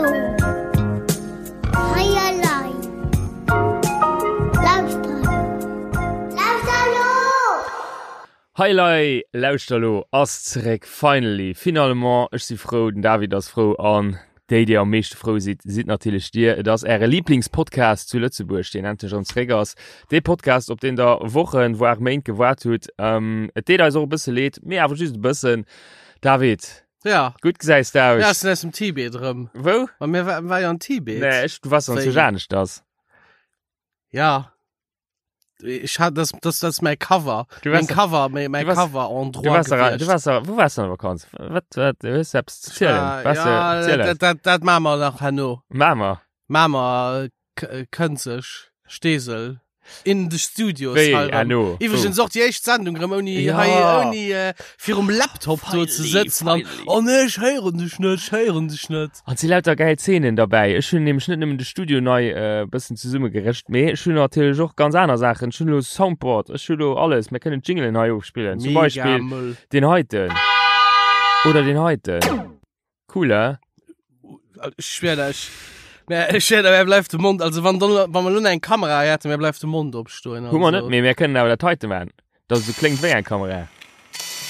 lo! Hei elei! Lauschter lo! Lauschter lo! Hei elei! Lauschter lo ass zeréck, finally, finalement! Ech si frou, den David ass frou an déi, déi am meeschte frou sidd, sidd natierlech dir. Et ass äre Liblingspodcast zu Lëtzebuerg, deen endlech erëm zeréck ass. Dee Podcast, op deen der Wochen, voire Méint gewaart hutt. Et deet eis och e bësse leed, mee awer just e bëssen. David, Ja. Gutt gesäis de aus. Ja, ech sinn aus dem Tibet erëm. Wou? Ma mir war, war jo an Tibet. Nee, ech, du warst an Wéi? zu aneschters. Ja. Ich hat das das das ist mein Cover. Du Mein warst- Cover, mein, mein du warst- Cover Du Endroit warst, da, du gewiescht. warst da, wo warst du an der Vakanz? Wat, wat, du hues eppes ze zielen. Ah, Was, ja, äh, ziel dat, eis. dat, dat machen wir nach herno. Machen wir. Machen wir äh, Kënzeg, Steesel. In the Studios. Wéi, hei rëm. herno? Iwwregens och déi éischt Sendung rëm ouni Ja. hei ouni äh, virum Laptop do ze Finally, sëtzen an finally. oh nee, ech héieren dech net, ech héieren dech net. An et si lauter gäil Zeenen derbäi. Ech hunn nämlech net nëmmen de Studio nei e bëssen zesummegerëscht, mee ech hunn natierlech och ganz aner Saachen. Ech hunn elo Soundboard, ech hu lo alles. Mir kënnen Jinglen hei ofspillen. Zum Mega Beispill Mëll. deen heiten. Oder deen heiten. Cool, he? Ech schwör der, ech, mir, ech schwör der, mir bleift de Mond, also wann, dann, wann wir lo eng Kamera hätten, mir bleift de Mond opstoen. Hu mer net, mee mir kënnen awer dat heite man, dass et sou kléngt wéi eng Kamera.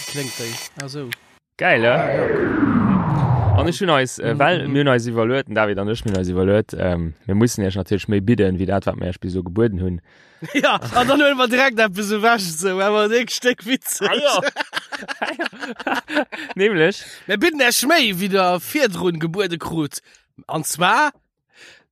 Kléngt déi, ah sou. Geil, he? Ah, ja, cool. An ech hunn eis, äh, well mir hunn eis iwwerluet, den David an ech, mir hunn eis iwwerluet, ähm, mir mussen iech natierlech méi bidden, wéi dat, wat mir iech bis elo gebueden hunn. Ja, an dann huele mer direkt eppes ewech, sou, awer e Stéck witzeg. Ah, ja. Nämlech? Mir bidden Iech méi, wéi der virdrun gebuede krut. An zwar?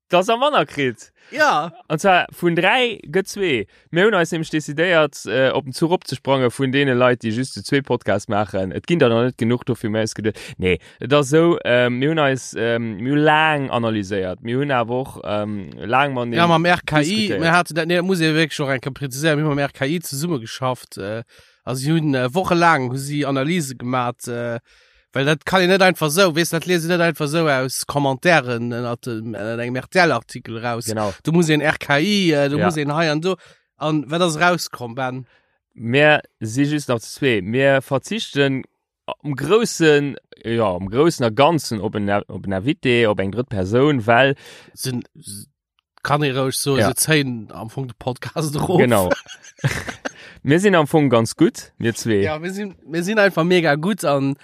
Dass der manner kritt. Ja. An zwar vun 3 gëtt zwee. Mir hunn eis nämlech decidéiert, äh, op den Zuch opzesprange vun deene Leit, déi just zu zwee Podcast maachen. Et ginn der nach net genuch, dofir hu mir eis geduet, nee, Et ass esou, mir hunn eis, mir hu laang analyséiert, mir hunn awer och laang mateneen Ja, mam RKI, diskutéiert. mir haten dat, nee, dat muss ee wierklech och eng Kéier präziséieren, mir hu mam RKI zesummegeschafft, a si hunn wochelaang hu si Analyse gemat, well dat kann een net einfach esou, weess, dat liest een net einfach esou aus Commentairen ënnert dem, ënnert engem RTL-Artikel eraus. Genau. Do muss een RKI, do Ja. muss een hei an do. An wat ass erauskomm, Ben? Mir si just nach zu zwee. Mir verzichten am Groussen, jo, am Groussen a Ganzen op en, op en Invité, op eng drëtt Persoun, well. Sinn, kann ee roueg soen, Ja. se zéien am Fong de Podcast erof. Genau. Mir sinn am Fong ganz gutt, mir zwee. Ja, mir sinn, mir sinn einfach mega gutt an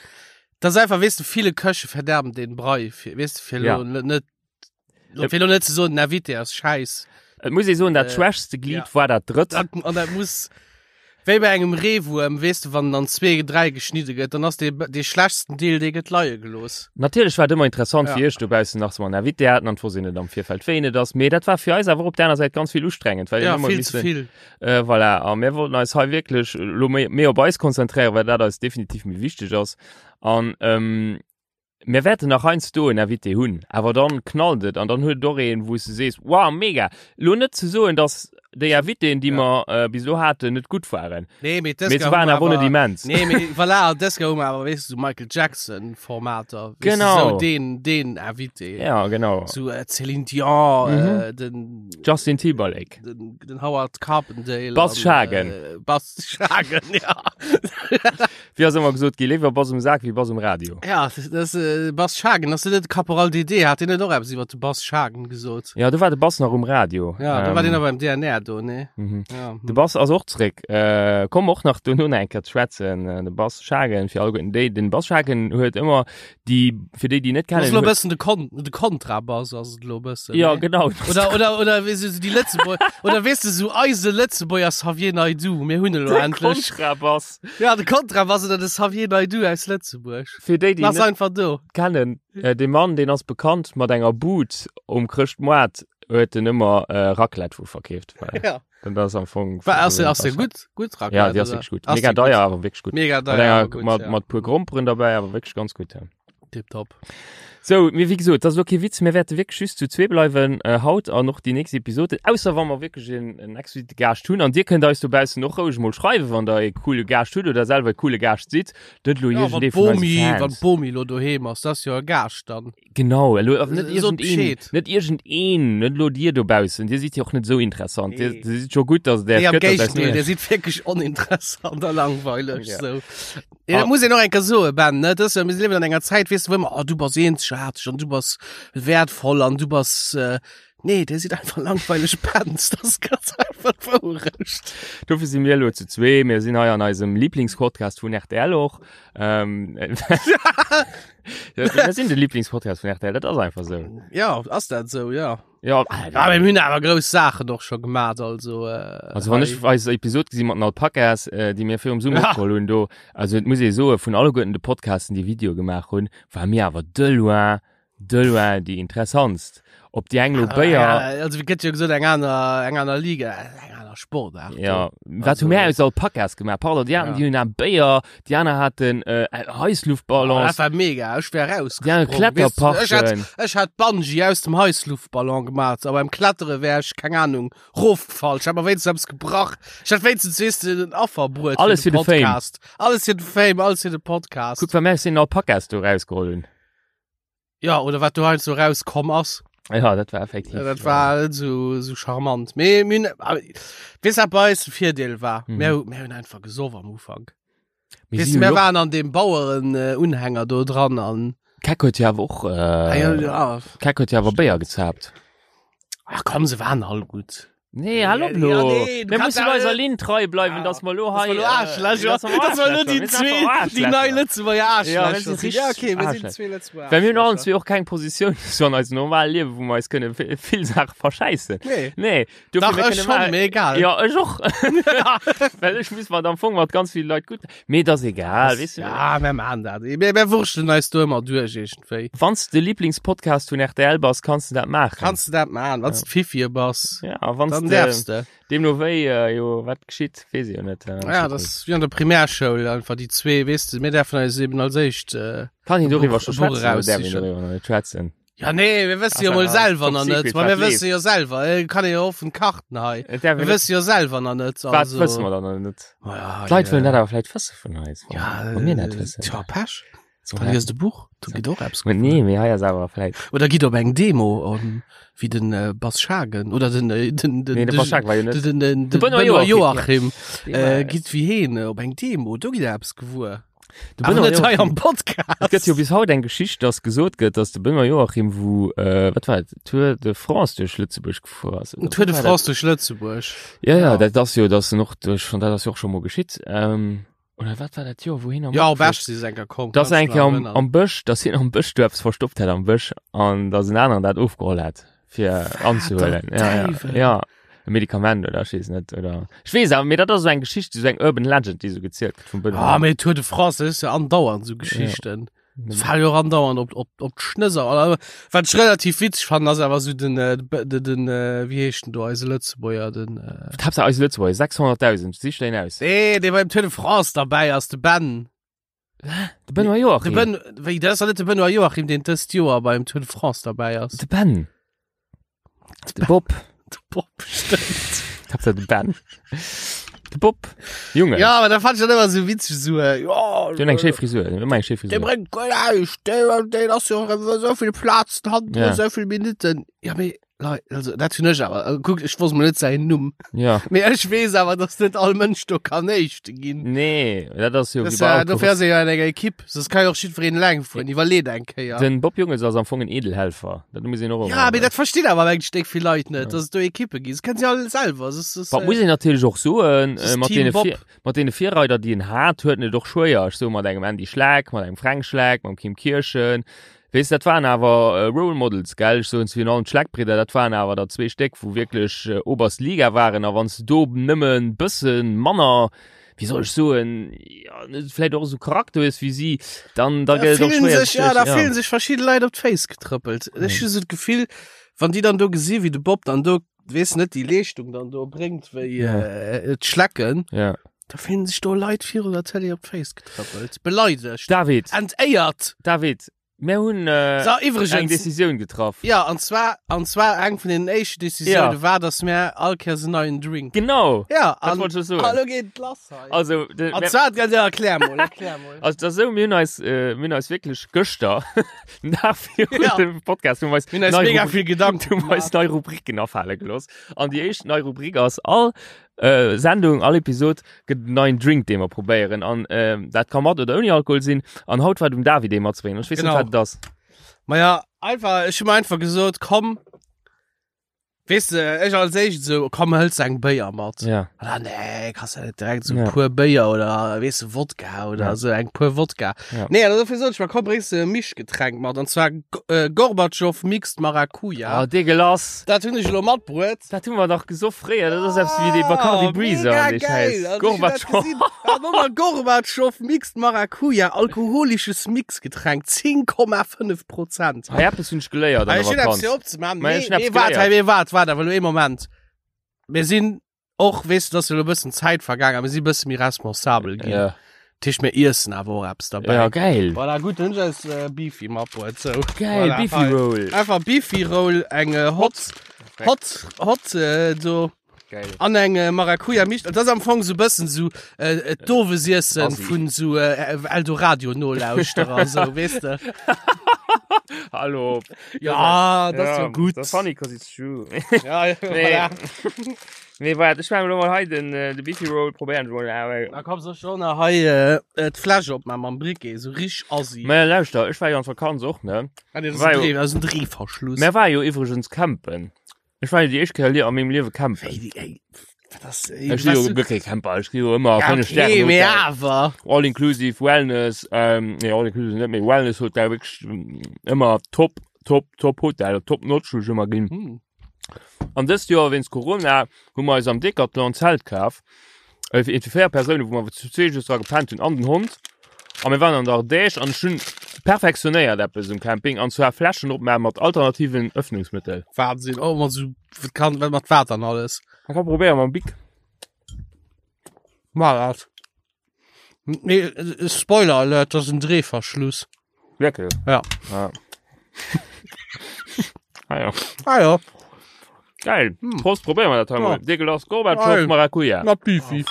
das ist einfach, weess de, viele Köche verderben den Brei, fir, weess de, fir Ja. lo net, Lo, fir lo net ze soen, den Invité ass scheiss. Et muss ee soen, dat Äh, schwächste Glied ja. war dat drëtt. Dat, an dat muss wéi bei engem Reewuerm, weess de, wann en an zwee, dräi geschnidde gëtt, dann ass dee, dee schlechtsten Deel, dee gëtt leie gelooss. Natierlech war et ëmmer interessant Ja. fir iech dobaussen nach, dass mer en Invité haten an et wosst een net am Virfeld, wéi en et ass. Mee dat war fir eis awer och op der aner Säit ganz vill ustrengend, well een Ja, ëmmer vill ze missen, vill. Äh, voilà. A mir wollten eis hei wierklech elo méi, méi op eis konzentréieren, well dat eis definitiv méi wichteg ass. An, ähm, Mir wäerten nach heiansdo en Invité hunn, awer dann knallt et an dann huet et och een, wou s de sees, wow, mega. Elo net ze soen, dass déi Invitéen, déi mer bis elo haten, net gutt waren, Nee, mee mee se waren awer och net immens. Nee, mee voilà, an dës Kéier hu mer awer, weess de, sou Michael Jackson-Formater, weess de, Genau. sou deen, deen Invité. Ja, genau. Sou Céline Dion, den. Justin Timberlake. Den, den Howard Carpendale. Bas Schagen. Äh, Bas Schagen, ja. Wéi ass ëmmer gesot gi, léiwer Bass um Sak wéi Bass um Radio. Ja, das, äh, Bas Schagen, ass dat net Caporal DD? Hat deen net och eppes iwwer de Bas Schagen gesot? Ja, do war de Bass nach um Radio. Ja, do war deen awer beim DNR do, ne? Mhm. Ja. hm. De Bass ass och zréck. Äh, komm och nach dono nach eng Kéier ze schwätzen. Äh, de Bas Schagen, fir alleguerten déi, den Bas Schagen huet ëmmer déi, fir déi, déi net Das kennen, ass lo huet- bëssen de Kon de Kontrabass ass et lo bëssen. Ja, ne? genau. Oder, oder, oder weess du, so déi Lëtzebuerg, oder weess du, so eise Lëtzebuerger Xavier Naidoo, mir hunn elo De endlech. Kontrabass. Ja, de Kontrabass oder de Xavier Naidoo aus Lëtzebuerg. Fir déi, déi Ass net einfach do. kennen, äh, dee Mann, deen ass bekannt mat enger Bud um Chrëschtmoart, huet en ëmmer äh, Raclette vu verkeeft. Well, Ja. Dann ass am Fong. War, ass, ass der gutt? Gutt Raclette? Ja, déi ass oder? wierklech gutt. Ass Mega déi gutt? deier, awer wierklech gutt. Mega Mat deier, enger, awer gutt, mat, ja. mat puer Gromperen derbäi, awer wierklech ganz gutt, ja. Tipptopp. Sou, mee wéi gesot, dat ass elo kee Witz, mir wäerte wierklech just zu zwee bleiwen äh, haut an och déi nächst Episoden, ausser wa mer wierklech en, en exquisite Gaascht hunn. An dir kënnt eis dobaussen och roueg mol schreiwen, wann der e coole Gaascht hutt oder selwer e coole Gaascht sidd. Net elo Ja, wann iergendee vun eise d'Bomi, wann Fans. d'Bomi elo doheem ass, dat ass jo e Gaascht dann. Genau, elo awer net Äh, sot iergendeen, Bescheed. net iergendeen, net elo dir dobaussen, dir sidd jo och net esou interessant. Dir, Nee. dir sidd scho gutt, dass et Nee, Äech am gëtt, dass eis Géigendeel, nur dir sidd wierklech oninteressant a langweileg. Ja. So. Ja, dat Ah. muss een och eng Kéier soen, Ben, ne? Dat ass jo, mir liewen an enger Zäit, weess du, wou ëmmer, oh, du bass eenzeg. eenzegaarteg an du bass wertvoll an du bass äh, nee, dir sidd einfach langweileg Pänz, das ass ganz einfach d'Wourecht. Dofir si mir elo zu zwee. Mir sinn hei an eisem Lieblingspodcast vun RTL och. Ähm, ja, mir sinn de Lieblingspodcast vun RTL, dat ass einfach sou. Ja, ass dat sou, ja. Ja, Ah, mir hunn awer grouss Saachen och scho gemat, also äh, Also wann ech eis Episod gesi mat den Alpakas, äh, déi mir virum Summer Ja. opgeholl hunn do, also et muss ee soe vun alleguerten de Podcasten, déi Video gemaach hunn, war mir awer de loin, de loin déi interessantst. Ob déi eng lo Béier, Ja, also wie gëtt jo gesot eng aner eng aner Liga, eng aner Sportart. ja, wat hu Also- mir aus Alpakas gemaach? Pardon, déi haten, Ja. déi hunn a Béier, déi aner haten äh, Oh, Heissluftballons, dat war mega, ech wär raus. déi aner Ech hätt, Kletterparken. ech hätt Bungee aus dem Heissluftballon gemaat, aber beim Klettere wär ech, keng Ahnung, rofgefall. Ech hätt mer wéinstens eppes gebrach. Ech hätt wéinstens, weess de, en Affer bruet Alles fir de Fame. Podcast. Alles fir de Fame, alles fir de Podcast. Kuck, wat mir aus den Alpakas do rausgeholl hunn. Ja, oder wat do heiansdo rauskomm ass. Ja, dat war effektiv. Ja, dat war net so, so charmant. Mee, mir hunn, aber, weess wat bei eis de Virdeel war? Mhm. Mir, mir hunn einfach gesoff am Ufank. Mir Weess si du, mir jo- waren an deem Baueren-Unhänger do dran an. Keck huet jo awer och, Ah, ja, äh, ja. Keck huet jo awer Béier gezaapt. Ach komm, se waren all gutt. Nee, hallo Ja, lo. nee, du Mir kannst mussen ja- eiser Linn trei bleiwen, Ja. dass mer lo Dass hei. mer lo Aarschlächer, äh, dass mer dass mer lo déi Aarschlächer, zwee, mir sind einfach déi nei Aarschlächer. Lëtzebuerger Ja, wir Aarschlächer sind sinn. Ja, richtig okay, mir sinn Aarschlächer. zwee Lëtzebuerger Well mir hunn allen Aarschlächer. zwee och keng Positioun so an eisem normalen Liewen, wou mer eis kënne vi- vill Saache verschäissen. Nee. Nee, dofir, Dach, mir ech kënne schon, mal- mir egal. Ja, ech och. Well ech muss mat am Fong mat ganz vill Leit gutt. Mee dat ass egal, weess du. Ja, mir machen dat. Mir, mir wurschtelen eis do ëmmer duerch iergendwéi. Wann s de Lieblingspodcast vun RTL bass, kanns de dat maachen. Kanns du dat machen, wann du Fifi bass, Ja, wann dann s däerfs de de. deemno wéi, äh, jo, wat geschitt, weess ech jo net. Äh, Ja, das ist wie an der Primärschoul, einfach déi zwee, weess du, mir däerfen eis eben als éischt, äh, Kann een doriwwer Buch- scho e Buch schwätzen oder däerf een raussichen. doriwwer nach net schwätzen? Ja, nee, mir wësse jo Ass mol ja selwer top nach net. secret, Ma mir wat wësse jo selwer, äh, kann ee jo offen Karten hei. Et däerf Mir een net- wësse jo selwer nach net. Wat Also, wësse mer dann nach net? Ma ja, D'Leit ja. wëllen dat awer vläicht wësse vun eis. Ja, Wa mir net wëssen. Tja, Pech. So, Dann liest e Buch, do gitt och eppes Mä nee, mee hei ass awer vläicht. Oder gitt op eng Demo, um, wéi den äh, Bas Schagen oder den äh, den den Nee, de Bas Schagen war jo net. den den, den De Benoît Benoît Joachim. Joachim äh, gitt wéi heen äh, op eng Demo, do gitt eppes gewuer. De Awer Benoît net hei Joachim. am Podcast. Et gëtt jo bis haut eng Geschicht, dass gesot gëtt, dass de Benoît Joachim, wou, äh, wat war et, Tour de France duerch Lëtzebuerg gefuer ass. oder Tour de wat war France duerch Lëtzebuerg. Dat? Ja, ja, Ja. dat ass jo, dass en och duerch, dat ass jo och scho mol geschitt. Ähm, oder wat war dat Joer, wou hien am Ja, op Matfuer- Esch si se enker komm. Dass kannst eng du Kéier nach am, erënnern. am Bësch, dass hien am Bësch du eppes verstoppt hätt am Bësch an dass en aneren dat ofgeholl hätt, fir anzehuelen. Ja, ja, Däiwel. ja. E Medikament oder ech weess net, oder ech weess awer, mee dat ass esou eng Geschicht, esou eng Urban Legend, déi esou gezielt gëtt vum Benoît. Ah, mee Tour de France, dat is jo andauernd esou Geschichten. Ja. Fale jo och andauernd op, op, op d'Schnësser. Oder, wat ech relativ witzeg fannen, ass awer esou den, äh, den, den, äh, wéi heescht den do, eise Lëtzebuerger, den, äh, Haaptsaach eise Lëtzebuerger, 600.000, sich deen aus. Nee, dee beim Tour de France derbäi ass, de Ben. De Benoît Joachim. De Ben, wéi, dat ass doch net de Benoît Joachim, deen dëst Joer beim Tour de France derbäi ass. De Ben. De Bob. De Bob, stimmt. Haaptsaach de Ben. De Bob. Junge. Ja, aber da fand ich dann immer so witzig, so, äh, ja. Die hun eng schéi Frisur, die hun ëmmer eng schéi Der Frisur. bringt guer näischt, der, der ass jo so vill Platz, hat Ja. so vill Minuten. Ja, mee, Lei, also, dat hunn ech awer. Äh, Kuck, ech wosst mol net säin Numm. Ja. Mee ech weess awer, dass net all Mënsch do kann Éischte ginn. Nee, dat ass jo Das, wéi bei äh, Autos. dofir ass ee jo an enger Ekipp. Soss kann jo och jiddwereen eleng fueren. Iwwerleet eng Kéier. Den Bob Jungels ass am Fong en Edelhelfer. Dat muss een och Ja, ëmmer- mee dat verstinn awer eng Stéck vill Leit net, dass et do Ekippe ginn. Das kennen si all selwer. Das ist, Wat äh, muss een natierlech och soen, das ist äh, mat Team deene Bob. Vir mat deene Virreider, déi en hat, huet en et och schwéier. Ech soe mat engem Andy Schleck, mat engem Fränk Schleck, mam Kim Kirchen. Weess, dat waren awer Role Models, gell? Ech soen virun allem d'Schleckbridder, dat waren awer der zwee Stéck, wou wierklech oberst Liga waren. A wann s de do nëmme bësse manner, wéi soll ech soen, jo, net vläicht och esou Charakter hues wéi si, dann da Da gëtt et och fillen schwéier, sech, ja, da ja. fillen sech verschidde Leit op d'Féiss getrëppelt. Ech hu sou d'Gefill, wann déi dann do gesi wéi de Bob dann do, weess net, déi Leeschtung dann do bréngt wéi Ja. äh, d'Schlecken, Ja. da fillen sech do Leit virun der Télé op d'Féiss getrëppelt. Beleidegt. David, Entéiert. David, mir hunn äh, So, eng iwwregens. Decisioun getraff. Ja, an zwar, an zwar eng vun den éischten Decisioune Ja. war, dass mir all Kéiers en neien Drink. Genau, Ja, dat an, wollt ech soen. hallo geet et lass hei. Also, de, An mir, zwar, ja, ja, erklär mol, erklär mol. also dat ass esou, mir hunn eis, äh, mir hunn eis wierklech gëschter, den Dag virun Ja. dem Podcast, hu mir eis Mir hunn eis nei mega Rubri- vill Gedanken hu mir eis nei Rubriken afale gelooss. An déi éischt nei Rubrik ass all äh, Sendung, all Episod gëtt en neien Drink, dee mer probéieren. An äh, dat ka mat oder ouni Alkohol sinn. An haut war et um David, dee matzebréngen. Ech weess net, Genau. wat et ass. Maja, einfach, ech hu mir einfach gesot, komm, weess de, ech als éischt esou, komm, hëls eng Béier mat. Ja. An dann, nee, kannst du net direkt so Ja. puer Béier oder, weess de, Wodka oder Ja. so eng puer Wodka. Ja. Nee, an dofir sot ech mir, komm, bréngs de e Mischgetränk mat, an zwar G- äh, Gorbatschow Mixed Maracuja. Ah, dégueulasse. Dat hunn ech elo matbruet. Dat hu mer dach gesoff fréier, dat ass eppes wéi dee Bacardi Ah, Breezer mega an dee geil. Schäiss. Also, ich hun dat Gorbatschow. gesinn. Ah, nochmal Gorbatschow Mixed Maracuja, alkoholisches Mixgetränk, 10,5 Prozent. Hei eppes hunn ech geléiert an Ah, der ich hun eppes Vakanz. fir opzemachen. Mä Nee, ech hun eppes nee, wart, geléiert. hey, nee, wart, wart, awer lo ee Moment. Mir sinn och, weess du, dass elo e bëssen Zäit vergaangen, mir sinn e bësse méi responsabel ginn. Ja. Dat heescht, mir iessen awer och eppes derbäi. Ja, geil. Voilà, gutt, dann hunn ech eis äh, Beefy matbruet. So. Geil, Voilà, Beefy hei. Roll. Einfach Beefy Roll, eng äh, Hot, Hot, Hot, äh, do. Geil. An eng äh, Maracuja Misch. Dat ass am Fong so bëssen so äh, äh, d'Owesiessen Assi. vun so äh, Eldoradio Nolauschterer, so, weess de. Hallo. Ja, dat ass jo gutt. Das funny cause it's true. Ja, ja, Nee. voilà. Nee, waart, ech menge lo mol hei den, äh, de Beefy Roll probéieren ech mol. awer. Da komm soll schon nach hei äh, äh, d'Fläsch opmachen mam Briquet, so rich assi. Mä lauschter, ech war jo an Vakanz och, ne? Ah, nee, das ist war ein jo- Dreh, das ist ein Drehverschluss. Mär war jo iwwregens campen. Ech war jo déi éischt Kéier lie- a mengem Liewe campen. Ey, ey, wat ass, ey, Ech si jo weißt du- guer kee Camper, ech gi jo ëmmer Ja, 5 okay, Stären mee Hotel. awer. All inclusive Wellness, ähm, nee, all inclusive net, mee Wellness Hotel, wierklech mm, ëmmer top, top, top Hotel, top notch hu ech ëmmer ginn. Hm. An dëst Joer wéinst Corona hu mer eis am Decathlon en Zelt kaf. Äh, fir fir 4 Persounen, wou mer zu zwee just dra gepennt hunn an den Hond. A mir waren an der Ardèche an ech hunn perfektionéiert eppes um Camping an zwar Fläschen opmaachen mat alternativen Öffnungsmëttel. Wahnsinn, oh, mat so, wat kann, wat mat Water an alles. Man kann probéieren mam Bic. Mal dat. Nee, äh, Spoiler Alert, das ist ein Drehverschluss. Wirklich? Ja. Ah. ah ja. Ah ja, Geil. Prost, probéieren wir dat hei Ja. mol. Dégueulasse Gorbatschow Geil. Maracuja. na Beefy.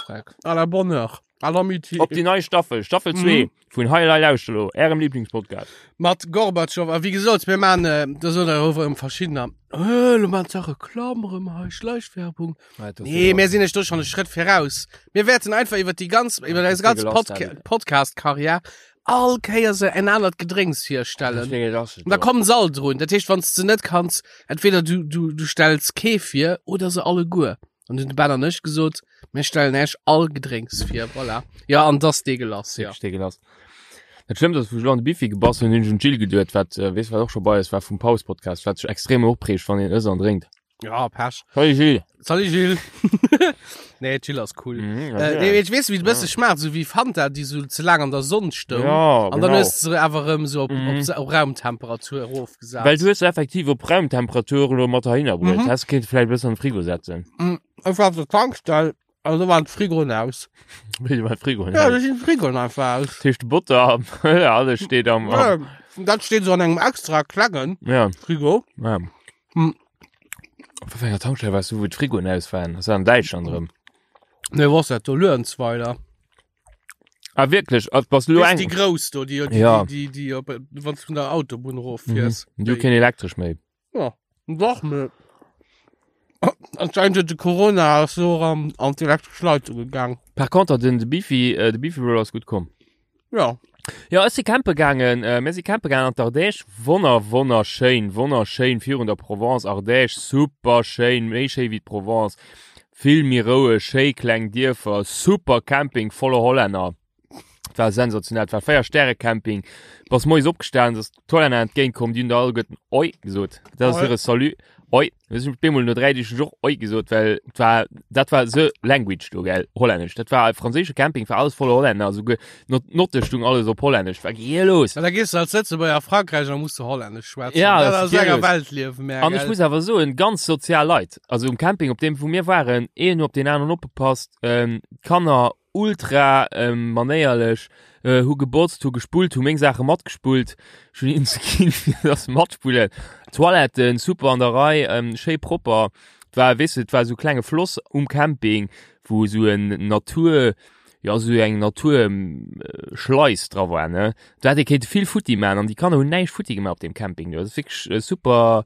À la bonne heure. À l'amitié. Op déi nei Staffel, Staffel 2 vun Hei Lei Lauschter lo, ärem Lieblingspodcast. Mat Gorbatschow. A wéi gesot, mir maan, äh, da soen der och erëm verschiddener, äh, lo maan se Reklamm erëm hei, Schleichwerbung. Nee, mir sinn iech do schon e Schrëtt viraus. Mir wäerten einfach iwwer déi ganz, iwwer eis ganz Podca Podcast-Karriär all Kéier se en anert Gedrénks virstellen. Und da kommen se all drun. Dat heescht, wann s de net kanns, entweder du, du, du stells kee vir oder se alleguer. An hunn de Ben an ech gesot, mir stellen Äech all Gedrénks vir. Voilà. Ja, an dass deegelass, ja. Deegelass. Dat Schlëmmst ass, wou ech elo an de Bifi gebass hunn, hunn ech un d'Jill geduet, wat, äh, weess wat och scho bei eis war vum Paus-Podcast, wat sech extrem opreegt, wann een ësst an drénkt. Ja, Pech. Salut Jill. Salut Jill. nee, Jill ass cool. Mhm, Äh, nee, ich weess, wéi et bësse schmaacht, sou wéi Fanta, déi sou ze laang an der Sonn stoung. Ja, An dann genau. hues du se awer erëm sou op, Mhm. op, op Raumtemperatur erofgesat. Well du hues se effektiv op Raumtemperatur elo mat heihinner bruet. Mhm. Häss kéinte vläicht e bëssen an de Frigo setzen. Ech war op der Tankstell an do waren d'Frigoen aus. Wéi war d'Frigoen Ja, aus? do sinn d'Frigoen einfach aus. Dat heescht de Botter, alles steet am, am Ja, dat steet sou an engem extra klengen ja, Frigo. ja. Hm. Op wat fir enger Tankstell waars du, wou d'Frigoen aus waren? Das war an Däitschland erëm. Nee, was dat do? Luerenzweiler. Ah, wierklech? Ah, bass du lo Weess, eng? déi grouss do, déi, déi, Ja. déi, déi, déi op, wann du vun der Autobunn eroffiers. Mhm. Du keen Elektresch méi. Ja, dach, mee anscheinend huet de Corona ass och an, an d'elektresch Leitung gegaang. Par contre, den de Beefy, äh, de Beefy Roll ass gutt komm. Ja. Ja, ech si campe gaangen, äh, mir si campe gaangen an d'Ardèche. Wonner, wonnerschéin, wonnerschéin virun der Provence, Ardèche, super schéin, méi schéi wéi d'Provence. Vill méi roueg, schéi kleng Dierfer, super Camping voller Hollänner. Et war sensationell, et war 4 Stäre Camping. Bass moies opgestanen, ass d'Hollänner entgéint komm, déi hunn der alleguerten Oi gesot. Dat ass hire Salut, Oi. Mir sinn op eemol no 3 Deeg hunn ech och Oi gesot, well et war, dat war the language do, gell, Hollännesch. Dat war e franséische Camping, war alles voller Hollänner, esouguer d'Notte stung alles op Hollännesch, war gielos. Ja, da gees du als Lëtzebuerger a Frankräich an da muss du Hollännesch schwätzen. Ja, dat das ass enger gielos. Welt liewen, mä An ech gell. muss awer soen, ganz sozial Leit. Also um Camping, op deem wou mir waren, een op deen aneren opgepasst, ähm, d'Kanner ultra manéierlech, hu gebotzt, hu gespullt, hu meng Saache matgespullt, ech hunn hinnen ze ginn, fir dass se matspullen. Toiletten super an der Rei, schéi propper. Et war, weess de, et war esou klenge Floss um Camping, wou esou en Natur, jo esou eng Naturschleis dra war, ne. Do hätt ee kéinte vill futti maachen an déi Kanner hunn näischt futti gemaach op deem Camping do. Dat ass wierklech super,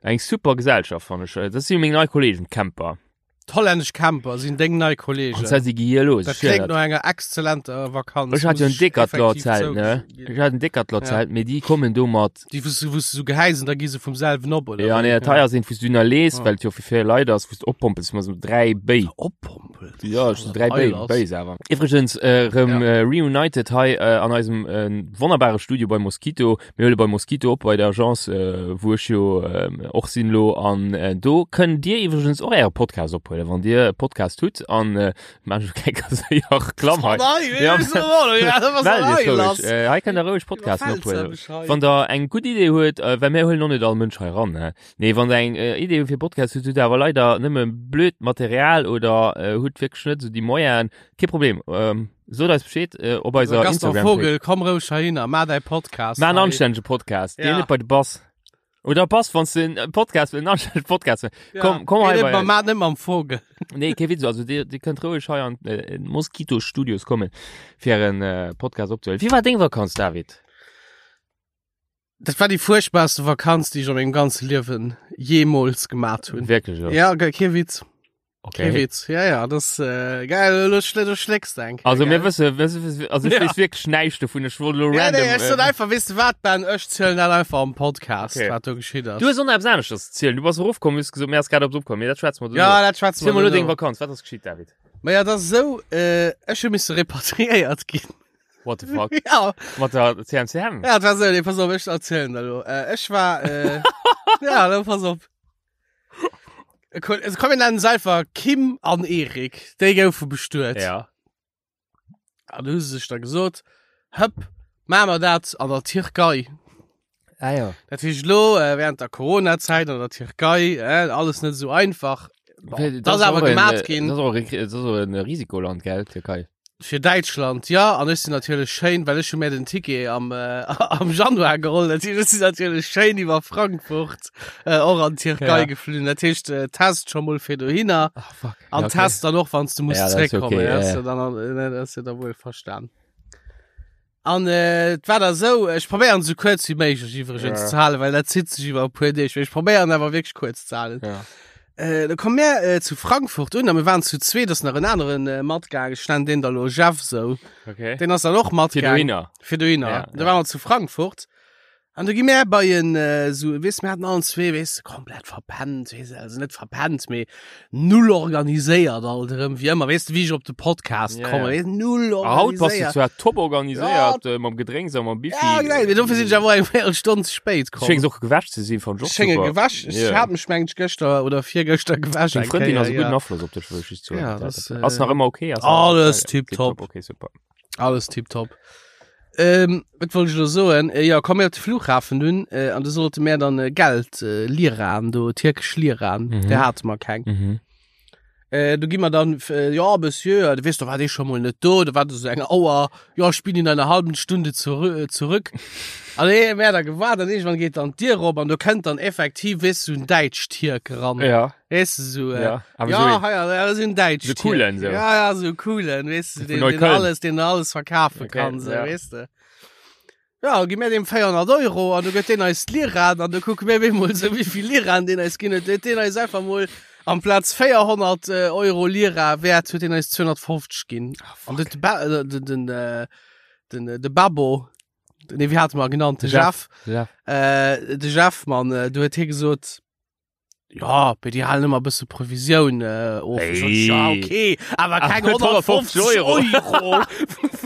eng super Gesellschaft fannen ech. Dat si meng nei Kollegen, d'Camper. D'hollännesch Camper sinn deng nei Kollegen. An zwar si gi hier los. Dat kléngt no enger exzellenter Vakanz. Ech hat jo en muss ech Decathlon-Zelt, ne? effektiv Ech hat en Decathlon-Zelt, mee déi kommen do mat. Déi, wou s du, wou s du sou gehäis an da gi se vum selwen op, oder? Ja, wéi? nee, dat hei ass eent, wou s du ënnerlees, Ah. well et jo fir vill Leit ass, wou s du oppompels, mat sou 3 Béi. Oppompelt? Ja, ech sou 3 Béi, Eil ass. Béis awer. Iwwregens, äh, rëm Ja. äh, reunited hei äh, an eisem äh, wonnerbare Studio bei Mosquito. Mir huele bei Mosquito op, bei der Agence, äh, wou ech jo äh, och sinn lo. An äh, do kënnt Dir iwwregens och Äre Podcast ophuelen, wann Dir e Podcast hutt. An äh, maan ech keng séier Reklamm hei. Ja, Mellt Iech roueg. Äh, hei kënnt der roueg Podcasten ophuelen. Wann der eng gutt Idee huet, äh, well mir huelen och net all Mënsch hei ran, ne? Nee, wann der eng äh, Idee fir Podcast hutt, hutt awer leider nëmme blöd Material oder äh, hutt wierklech net sou déi Moyenen, kee Problem. Ähm, sot eis Bescheed äh, op eiser Gaston Instagram. Vogel, komm roueg heihinner, maach däi Podcast. Maach en hei. anstännege Podcast, Ja. geh net bei de Bass. Oder Bass, wann du en Podcast, en anstännege Podcast Ja. Komm, komm Geh hei net bei mam- Maach net mam Vogel. Nee, kee Witz, also dir, dir kënnt roueg hei an äh, Mosquito Studios kommen, fir en äh, Podcast opzehuelen. Wéi war deng Vakanz, David? Dat war déi fuerchtbarste Vakanz, déi ech a mengem ganze Liewen jeemools gemat hunn. Wierklech, ja? Ja, ge- kee Witz. Okay. Kee Witz. Ja, ja, das äh, geil, lo schl du schlägst eng. Also mir wësse, wësse, wësse, also ich Ja. weess wierklech näischt dovun, ech wollt lo Ja, random. nee, ech sot äh, einfach, weess du wat, Ben, ech zielen dat einfach am Podcast, Okay. wat do geschitt ass. Du hues och nach eppes aneschters ze zielen. Du bass erofkomm, hues gesot, mir ass grad eppes opkomm. Mee dat schwätze mer duerno. Ja, dat schwätze Ziel mer mol lo deng duerno. Vakanz. Wat ass geschitt, David? Ma ja, dat ass esou, äh, ech hu misse repatriéiert ginn. What the fuck? Ja, Mat der CMCM? ja, dat war esou, nee, pass op, ech erzielen dat lo. Äh, ech war, äh, ja, lo pass op. E Ko- Also, komm, mir nennen se einfach Kim an Erik. Déi goufe bestuet. Ja. An du hu se sech da gesot, hëpp, maache mer dat an der Tierkei. Ah ja. Dat heescht lo, äh, während der Corona-Zäit an der Tierkei, äh, alles net esou einfach. Bon, dat ass awer gemat ginn. Dat ass och e- dat ass och en Risikoland, gell, Tierkei? Fir Däitschland, ja, an ech sinn natierlech schéin, well ech hu mir den Ticket am, äh, am Januar geholl, dat heescht, ech sinn natierlech schéin iwwer Frankfurt äh, och an d'Tierkei Ja. geflunn. Dat heescht, äh, Test scho mol fir dohinner Ah, fuck. an Ja, okay. Test dann och, wann s du muss Ja, dat ass zréckkommen. okay, ja, ja, ass ja. ja dann, äh, ne, dat ass ja da wuel verstan. An äh, et war da sou, ech probéieren sou kuerz wéi méiglech iwwregens Ja. ze halen, well dat zitt sech iwwer e puer Deeg. Mee ech probéieren awer wierklech kuerz ze halen. Ja. Äh, da komme mir äh, zu Frankfurt un, a mir waren zu zweet, ass nach en aneren äh, matgaangen, ech nennen deen da lo Jeff sou. Okay. Deen ass dann och Fir matgaangen. dohinner. Fir dohinner. Ja, Da ja. waren wir zu Frankfurt. An du gi mir bei en äh, so, weess, mir hatten allen zwee, weess, komplett verpennt, weess, also net verpennt, mee null organiséiert alt erëm, wéi ëmmer, weess de, wéi ech op de Podcast Ja, komme, ja. weess, null Ah, haut bass du organiséiert. zwar top organiséiert ja. mam Gedrénks a mam Bifi. Ja, genau, mee dofir sinn ech awer eng Véierelstonn ze spéit Du komm. schéngs och gewäsch ze sinn, fand ech och Ech schénge super. gewäsch, ech Ja. hat mech mengt gëschter oder virgëschter gewäsch. Deng eng Frëndin Kéier, ass e gudden ja. Afloss op dech, wëll ech just soen. Ja, das, äh, Ass nach ëmmer okay? Ass nach Alles okay? tipptopp. Okay, super. Alles tipptopp. Ähm, wat wollt ech elo soen? Äh, ja, komm mir op de Flughafen dunn, äh, an du sollte mir dann äh, Geld, äh, Liraen do, tierkesch Liraen, Mhm. der hate mer keng. Mhm. Äh, du gi mer dann, äh, ja, Monsieur, du weess, da war dee scho mol net do, da war do so eng Auer, ja, ich bin in einer halben Stunde zurü äh, zurück. An ee mir da gewaart, an irgendwann geet dann d'Dier op an do kënnt dann effektiv, weess du, so en Däitsch-Tierk ran. Ja, Weess du, so, äh, ja. Aber ja, so, ja, ja, das sind Deutsch. So coolen, so. Ja, ja, so coolen, weißt du, Von den, den Neukölln. alles, den alles verkaufen Okay, kann, so, ja. weißt du. Ja, gib mir dem 400 Euro an du gëtt den eis Liran an du kuck mir mol so wie viel Liran den eis ginn huet. Huet den eis einfach mol amplaz 400 äh, Euro Lira wäert huet den eis 250 ginn. An den, ba äh, den, den, äh, den, äh, de Babbo, nee, wie hat man genannt, de Jeff. Jeff, ja. äh, de Jeff, Mann, äh, du huet hie gesot, ja, bei die halen ëmmer e bësse Provisioun äh, of. Ich sot, Hey. Ja, okay, awer keng Awer 150 150 Euro. Euro.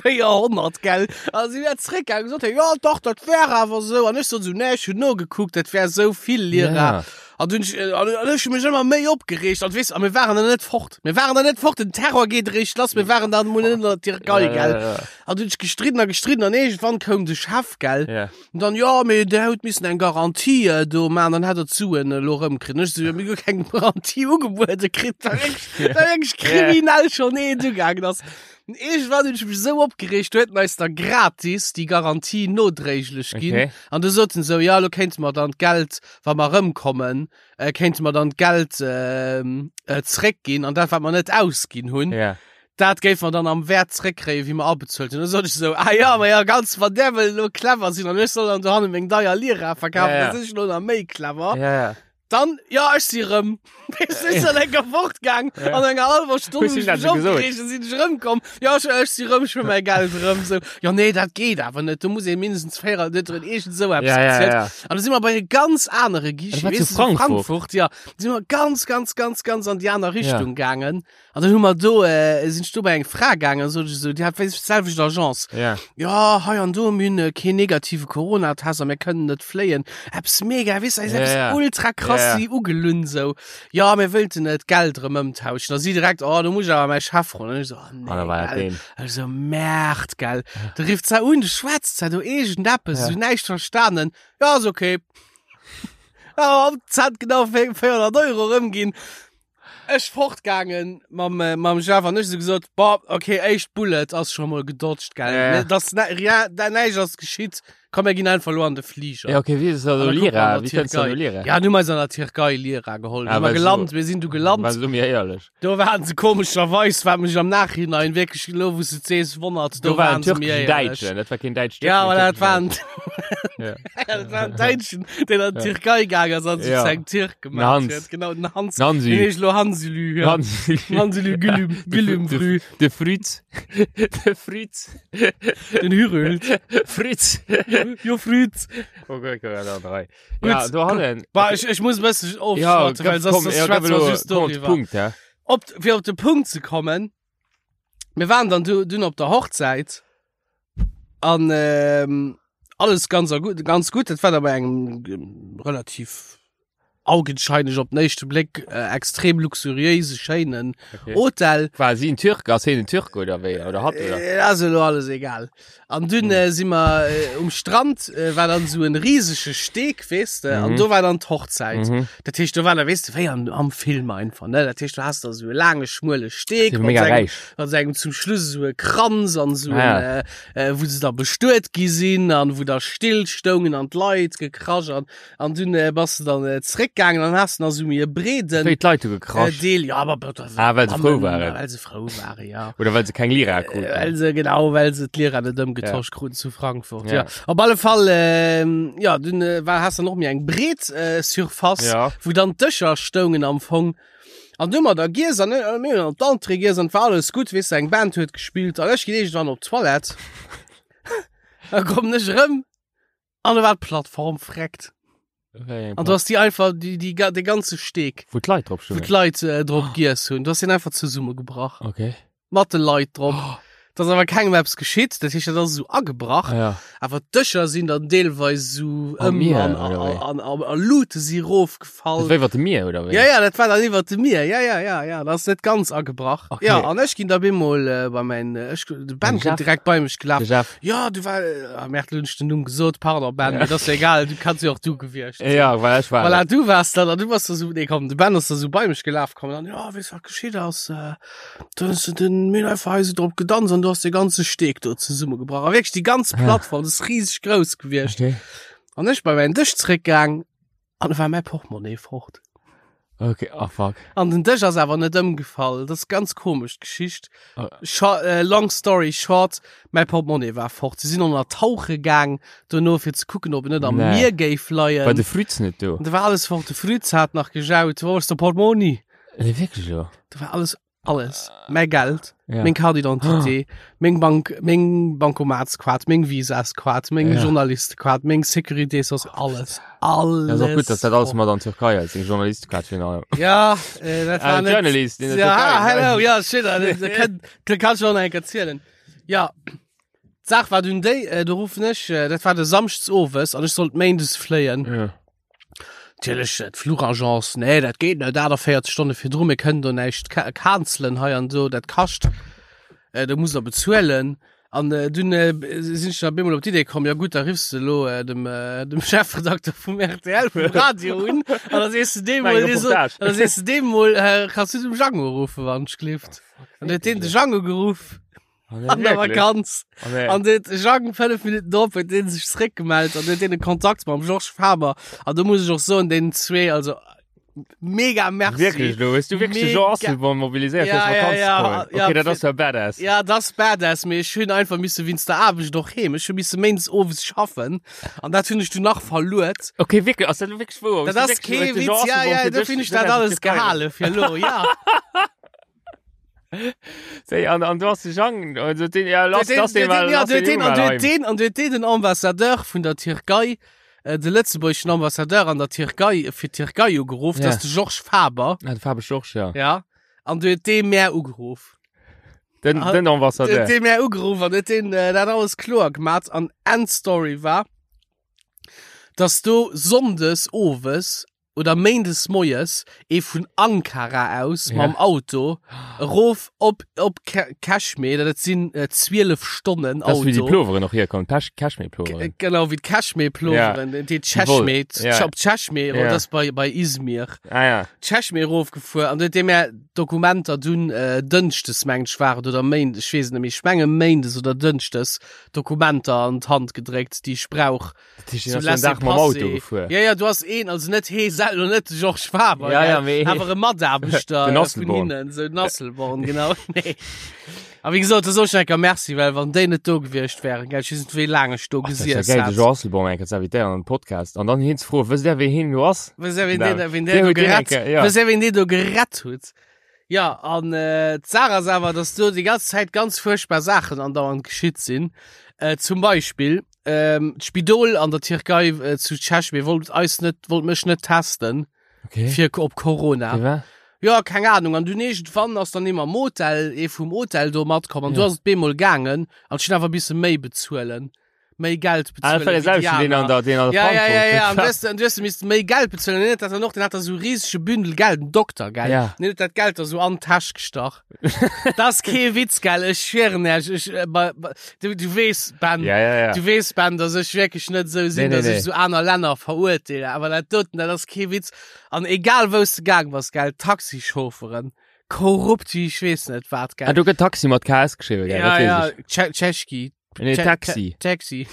400, gell? Also sie wär zréckgaangen, gesot, ja, doch, dat wär awer sou. An ech sot so, nee, ech hun nogekuckt, dat wär sou vill Lira. Ja. An dunn, äh, an, an ech hun mech ëmmer méi opgereegt. An weess, a mir waren dann net fort. Mir waren dann net fort, den Terror geet eréischt lass, mir waren dann mol net an der Tierkei, Ja, gell? ja, ja. An dunn ech gestridden a gestridden an irgendwann koum de Chef, gell? Ja. Und dann, ja, mee der huet missen eng Garantie äh, do man, dann hätt er d'Suen elo rëmkritt. Und ech so, ja, mir hu keng Garantie ugebuede kritt, da wirklich, da wirklich kriminell schon eent ugaangen ass. Und irgendwann hunn ech mech sou opgereegt, do huet en eis da gratis déi Garantie nodréiglech ginn. Okay. An du soten sou, ja, lo kéinte mer dann d'Geld, wa mer rëmkommen, äh, kéinte mer dann d'Geld äh, äh, zréckginn an dat, wat mer net ausginn hunn. Ja. Dat géif mer dann am Wäert zréckkréien, wéi mer abezuelt hunn. Da sot ech esou, ah ja, ma ja, ganz, wann där wëll elo clever sinn an ech soll dann dohanne meng deier Lira verkafen, Ja, ja. da sinn ech elo nach méi clever. Ja, ja. Dann, ja, ech si rëm. Weess du, ech sinn enker fortgaang Ja. an enger halber Stonn Hues hun du ech dat mech so gesot? opgereegt, sinn ech rëmkomm. Ja, ech, ech si rëm, ech wëll mäi Geld rëm. So, ja, nee, dat geet awer net. Do muss ee mindestens 4, net drin, iergend sou eppes Ja, ja, gezielt. ja. An da si mer bei e ganz anere Guichet, Dat war zu weess du, Frankfurt. Frankfurt, ja. Da si mer ganz, ganz, ganz, ganz an déi aner Richtung gaangen. An dann hu mer do, äh, sinn ech do bei eng Fra gaangen, sot ech esou, déi hat wéi d'selwecht Agence. Ja. Ja, hei an do, mir hunn äh, keen negative Corona-Test a mir kënnen net fléien. Eppes mega, weess du, Ja, eppes ja. ultra krass Ja, ja. si ugelunn sou. Ja, mir wëllten äh, d'Geld erëm ëmtauschen. A si direkt, oh, do muss ech awer mäi Chef froen. An ech sou, oh, nee, An da war dat gell. deen. Ech sou, Merde, gell. Du rifft se un, du schwätzt se do iergendeppes, Ja. sou näischt verstanen. Ja, ass okay. Ja, am Zent genau 400 Euro erëmginn. Ech fortgaangen mam, äh, mam Jeff an ech so gesot, boah, okay, éischt Bullet ass schon mol gedodged, gell. Ja, ja. Das, ne, rien, da näischt ass geschitt. Komm, mir ginn einfach lo an de Flieger. Ja, okay, wéi ist das An also da kucken wir Lira? an der Wéi kënns du an Türkei. Lira? Ja, nu meis an der Türkei Lira geholl. Ah, Ah, wir well so- geland, wir sinn du geland. War so mir éierlech. Do waren se komescherweis, wat mech am Nachhinein wierklech lo, wou s du et sees, wonnert, Do do war en waren se mir türkeschen éierlech. Däitschen, dat war keen Däitsch. Ja, aber dat waren, Ja. dat war en Däitschen, deen an d'Türkei gaang ass an sech Ja. zu engem Türk gemaach Hans. huet. Genau, den Hans. Hansi. Den heescht lo Hansilü, ja. Hansi. Hansilü Gülüm, Gülüm Frü, De Fritz. De Fritz. den Hürült. Fritz. Jo, Früz. Okay, okay, da drei. Gut. Ja, do hannen. Bah, ich, ich muss e bëssen Ja, ofschwatzen, well komm, soss ja, schwätze komm, wir just komm, doriwwer. Punkt, ja. Op, fir op de Punkt ze kommen, mir waren dann du, dunn op der Hochzäit an ähm, alles ganz a gut, ganz gut. Dat war da bei engem ähm, relativ augenscheinlich op den éischte Bléck äh, extrem luxuriéise schéinen Okay. Hotel. War si en Türk? Ass hien en Türk oder wéi? Oder hatt oder? Äh, ass elo alles egal. An dunn äh, si mer äh, um Strand, äh, war dann so en riesege Steg, weess de, an Mhm. do war dann d'Hochzäit. Mhm. Dat heescht, do war da, weess de, wéi an, am Film einfach, ne? Dat heescht, du hast da so e laange, schmuele Steg Si mat mega sengem, räich. mat sengem zum Schluss so e Kranz an so Ah, en, ja. äh, äh, wou se da bestuet gi sinn an wou da still stoungen an d'Leit gekrasch an An dunn äh, bass du dann äh, zréckgaangen an hast nach so méi e breeden Wéi d'Leit hu äh, gekrasch. Deel. Ja, aber aber Ah, well se frou waren. Well se frou waren, ja. Oder well se keng Lira Äh, kruten. Well se, genau, well se d'Lira net ëmgetosch kruten zu Frankfurt. Ja. Ja. Op alle Fall, ähm, ja, dunn äh, war, hast du noch méi eng breet äh, Surface, Ja. wou dann d'Dëscher stoungen am Fong. An du mat der Gies an äh, mir hunn an d'Entrée giess an war alles gutt, weess du, eng Band huet gespillt an ech ginn iergendwann op d'Toilette. Da kommen ech erëm An da war d'Plattform freckt. Wéi eng An du hast die einfach die, die, de ganze Steg, Wou d'Leit drop wou stoungen. d'Leit äh, drop giess hunn. Du hast den einfach zesummegebrach. Okay. Mat de Leit drop. Da ass awer kengem eppes geschitt. Dat heescht, dat ass esou agebrach. Ah, ja. Awer d'Dëscher sinn dann deelweis esou Am ëm Mier, an, oder wéi? an, an, an Lute si rofgefall. Dat war iwwer dem Mier, oder wéi? Ja, ja, dat war dann iwwer dem Mier. Ja, ja, ja, ja, dat ass net ganz agebrach. Okay. Ja, an ech ginn da bemol äh, bei mein, äh, ech, de Ben Jeff. kënnt direkt bei mech gelaf. De Jeff. Ja, du war, äh, Merde, lo hunn ech den Numm gesot, pardon Ben, Ja. mee dat ass egal, du kanns jo och du gewiescht sinn. Ja, well ech war. Voilà, du wars dann, an du bass da so, nee komm, de Ben ass da so bei mech gelaf kommen, an ja, weess wat geschitt ass, äh, du hues den, mir hunn einfach hei sou drop gedanzt an du has de ganze Steg do zesummegebrach. A wierklech déi ganz Plattform, dat ass riseg grouss gewiescht. Okay. An ech bei mäin Dësch zréckgaang, An da war mäi Portemonnaie fort. Okay, oh fuck. An den Dësch ass awer net ëmgefall. Dat ass ganz komesch d'Geschicht. Oh. Scho äh, long story short, mäi Portemonnaie war fort. Si sinn ënner tauche gaang dono fir ze kucken, ob en net am Nee. Mier géif leien. War de Früz net do? An da war alles fort. De Früz hat nach gejaut, Wo ass de Portmonni? Nee, wierklech elo? Da war alles Alles. Mäi Geld, Ja. meng Carte d'identité, meng Bank, meng Bankomatskaart, meng Visaskaart, meng Ja. Journalistekaart, meng Sécurité sociale, alles. Alles. Ja, ass och gutt, dass dat alles mat an Türkei ass, deng Journalistekaart virun allem. Ja, äh, dat war Ah, net. Journalist in der Ja, Türkei. hello, ja, shit, dat, dat, kann, dat kann schon eng erzielen. Ja, d'Saach war dunn déi, äh, do ruffen ech, äh, dat war de Samschdes owes an ech sollt méindes fléien. Ja. Natierlech, äh, d'Fluchagence, nee, dat geet net, 48 Stonne virdru, mir kënnen do näischt ca cancelen hei an do, dat kascht, äh, do musst der bezuelen. An äh, dunn äh, sinn ech da bemol op d'Idee komm, ja gutt, da riffs de elo äh, dem, äh, dem Chefredakteur vum RTL, vum Radio un, an da sees du deem Meng mol, dee so, Reportage. an da sees du deem mol, äh, kanns du dem Django ruffen, wann ech gelift. An huet deen de Django geruff. An der Vakanz. An den Jang 5 Minuten drop huet deen sech zréckgemellt an huet deen e Kontakt mam Georges Faber. An do muss ech och soen, deenen zwee, also. Mega merci. Wierklech lo? Hues du wierklech de Jean Mega. Asselborn mobiliséiert Ja, fir ja, Vakanz ja, ze kommen? ja, Okay, dat fir- ass ja badass. Ja, dat ass badass, mee ech hunn einfach misse wéinst der Aarbecht och heem. Ech hu misse méindes owes schaffen an dat hunn ech du nach verluert. Okay, wierklech, ass dat lo wierklech wouer? Dat ass kee Witz, ja, ja, do hunn ech dat alles gehale fir lo, ja. Séi, an, an du hast de Jean, also den, ja, lass, Den- lass den den- mal, ja, lass den den, Jungen an mal du heim. den, an du den den Ambassadeur vun der Tierkei, äh, de lëtzebuergeschen Ambassadeur an der Tierkei, fir d'Tierkei ugeruff, Ja. dat ass de Georges Faber, Ah, de Faber Georges, ja. ja. An du huet dee mär ugeruff. Den, Ah, den Ambassadeur. Huet dee mär ugeruff an huet deen äh, dat alles kloer gemat. An Endstory war, dass do Sonndes owes oder Méindes moies ee vun Ankara aus Ja. mam Auto erof op op Cashmere, dat sinn äh, 12 Stonnen Das ist, wie die Auto. Ploveren noch herkommen, Pesch- Cashmere-Ploveren. Genau wie d'Cashmere-Ploveren, ja. déi Cheshmere, Ja. op Cheshmere, Ja. ja. das bei, bei Izmir. Ah ja. Cheshmere erofgefuer an huet deem är Dokumenter dunn äh, Dënschdes mengt ech war et oder Méindes, ech weess et net méi, ech menge Méindes oder Dënschdes Dokumenter an d'Hand gedréckt, déi ech brauch. Das ist So den Tag mam Auto gefuer. Ja, ja, du hast een, also net hee selwer, net de Georges Faber, Ja, gell, ja, mee- awer e Mataarbechter Den äh, vun Asselborn. hinnen, so den Asselborn, genau. Nee. A wéi gesot, da soll ech enker Merci, well wann déi net do gewiescht wären, gell, ech weess net, wéi laang ech do Ach, das ist ja gesiess geil, de hätt. Jean Asselborn enker ze invitéieren an den Podcast an dann hien ze froen, wësst der, wéi hien lo ass? Wësst der, wien Genau. deen, wien Der deen do huet deen gerett, enker, ja. wësst der, wien deen do gerett huet? Ja, an äh, d'Saach ass awer, dass do déi ganz Zäit ganz furchtbar Saachen andauernd geschitt sinn. Äh, zum Beispill, ähm, d'Spidol an der Tierkei äh, zu Çeşme wollt eis net, wollt mech net testen Okay. fir op Corona. Fir wat? Ja, keng Ahnung. An dunn iergendwann ass dann ee mam Hotel, ee vum Hotel do matkomm an Ja. du ass et bemol gaangen an ech hunn awer misse méi bezuelen. méi Geld Ah, bezuelen. das war wéi der déi selwechte, den an aner. der, den an der Ja, ja, ja, ja. An du Frankfurt. hast, an du hast misst méi Geld bezuelen. Den hat dat dann och, den hat da so riesege Bündel Geld, den Dokter, gell? Ja. Den hat dat Geld da so an d'Täsch gestach. das ist kee Witz, gell? Ech schwören Iech, ech, äh, bei, bei, du, du weess, Ben, Ja, ja, ja. du weess, Ben, dass ech wierklech net sou sinn, Nee, nee, dass nee. ech sou aner Länner verurteile. Awer dat doten, dat ass kee Witz. An egal wous de gaang bass, gell, Taxichaufferen, korrupt wéi ech weess net wat, gell? Ah, do gëtt Taxi mat KS geschriwwen, gell? ja, Dat weess ja, ech. Tsche Tscheschki. Nee, Tsche- Taxi. Taxi.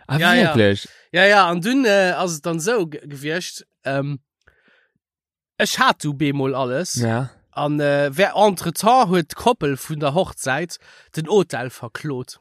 Ah, Ja, ja. wirklich? Ja, ja, an dunn äh, ass et dann sou ge- gewiescht, ähm, ech hat du bemol alles. Ja. An äh, wer entretemps huet d'Koppel vun der Hochzäit den Hotel verklot.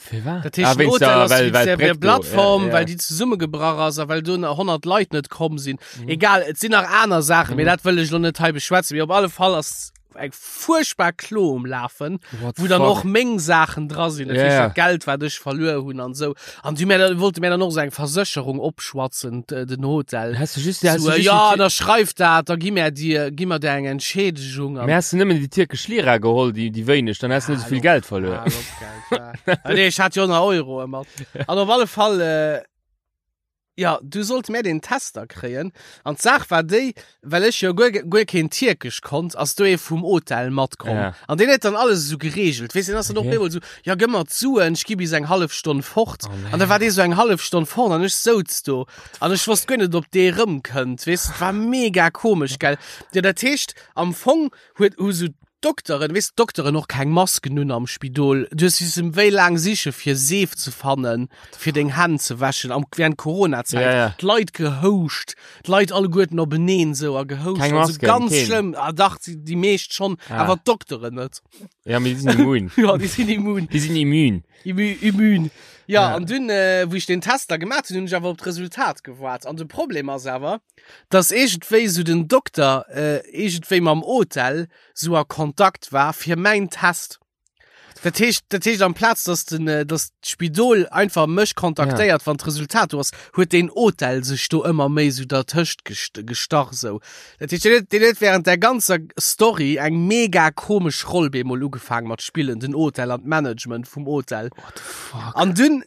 Fir wat? Dat heescht, Ah, den wéinst Hotel der- ass well- wéinst well der, der d'Bréck do, Plattform, ja, ja. well déi zesummegebrach ass a well do nach 100 Leit net komm sinn. Egal, et sinn nach aner Saachen, mee Mhm. dat wëll ech lo net hei beschwätzen. Mee op alle Fall ass eng furchtbar Klo um Lafen. What wou dann fuck? och meng Saachen dra sinn, dat Ja, heescht ja. dat Geld wat ech verluer hunn an sou. An du mir wollte mir dann och sou eng Versécherung opschwatzen d- den Hotel. Hast du just, hast So, du just ja, die, da schreift dat, da gi mir dir gi mir dir eng Entschädigung an. Mir hast du nëmmen déi tierkesch Lira geholl, déi, déi wéineg, dann hast du net so vill Geld verluer. Ah, op Geld, ja. Ah, nee, ech hat jo nach Euro ëmmer. An op alle Fall äh, ja, du sollt mir den Tester kréien. An d'Saach war déi, well ech jo guer, guer keen Tierkesch konnt, ass do ee vum Hotel matkomm. Ja. An deen huet dann alles esou geregelt. Weess, deen ass dann och Okay. bemol esou, ja gëmm mer d'Suen, ech gi bis eng hallef Stonn fort. Oh, An da war dee sou eng hallef Stonn fort an ech souz do. An ech wosst guer net, ob dee rëmkënnt. Weess, et war mega komesch, gell. Ja, dat heescht, am Fong huet hu sou Dokteren, weess d'Dokteren och keng Masken un am Spidol. Du hues missen wéi laang siche fir Seef ze fannen, fir deng Hänn ze wäschen am während Corona-Zäit. Ja, ja. D'Leit gehouscht, d'Leit alleguerten openeen sou a gehouscht. Keng Also Masken, ganz keen. schlëmm. Ah dach, déi, déi meescht schonn, Ah. awer d'Dokteren net. Ja, mee déi sinn immun. Ja, déi sinn immun. Déi sinn immun. Immu, immun. Ja, Ja. an dunn, äh, wou ech den Test da gemaat hunn, hunn ech awer op d'Resultat gewaart. An de Problem ass awer, dass iergendwéi sou den Dokter äh, iergendwéi mam Hotel sou a Kontakt war fir mäin Test. Dat heescht, dat heescht amplaz dass den, äh, dass d'Spidol einfach mech kontaktéiert, wann d'Resultat do ass, huet den Hotel sech do ëmmer méi sou dertëscht gest gestach sou. Dat heescht, deen huet, deen huet während der ganzer Story eng mega komesch Roll bemol ugefaangen mat spillen, den Hotel an d'Management vum Hotel. What the fuck? An dunn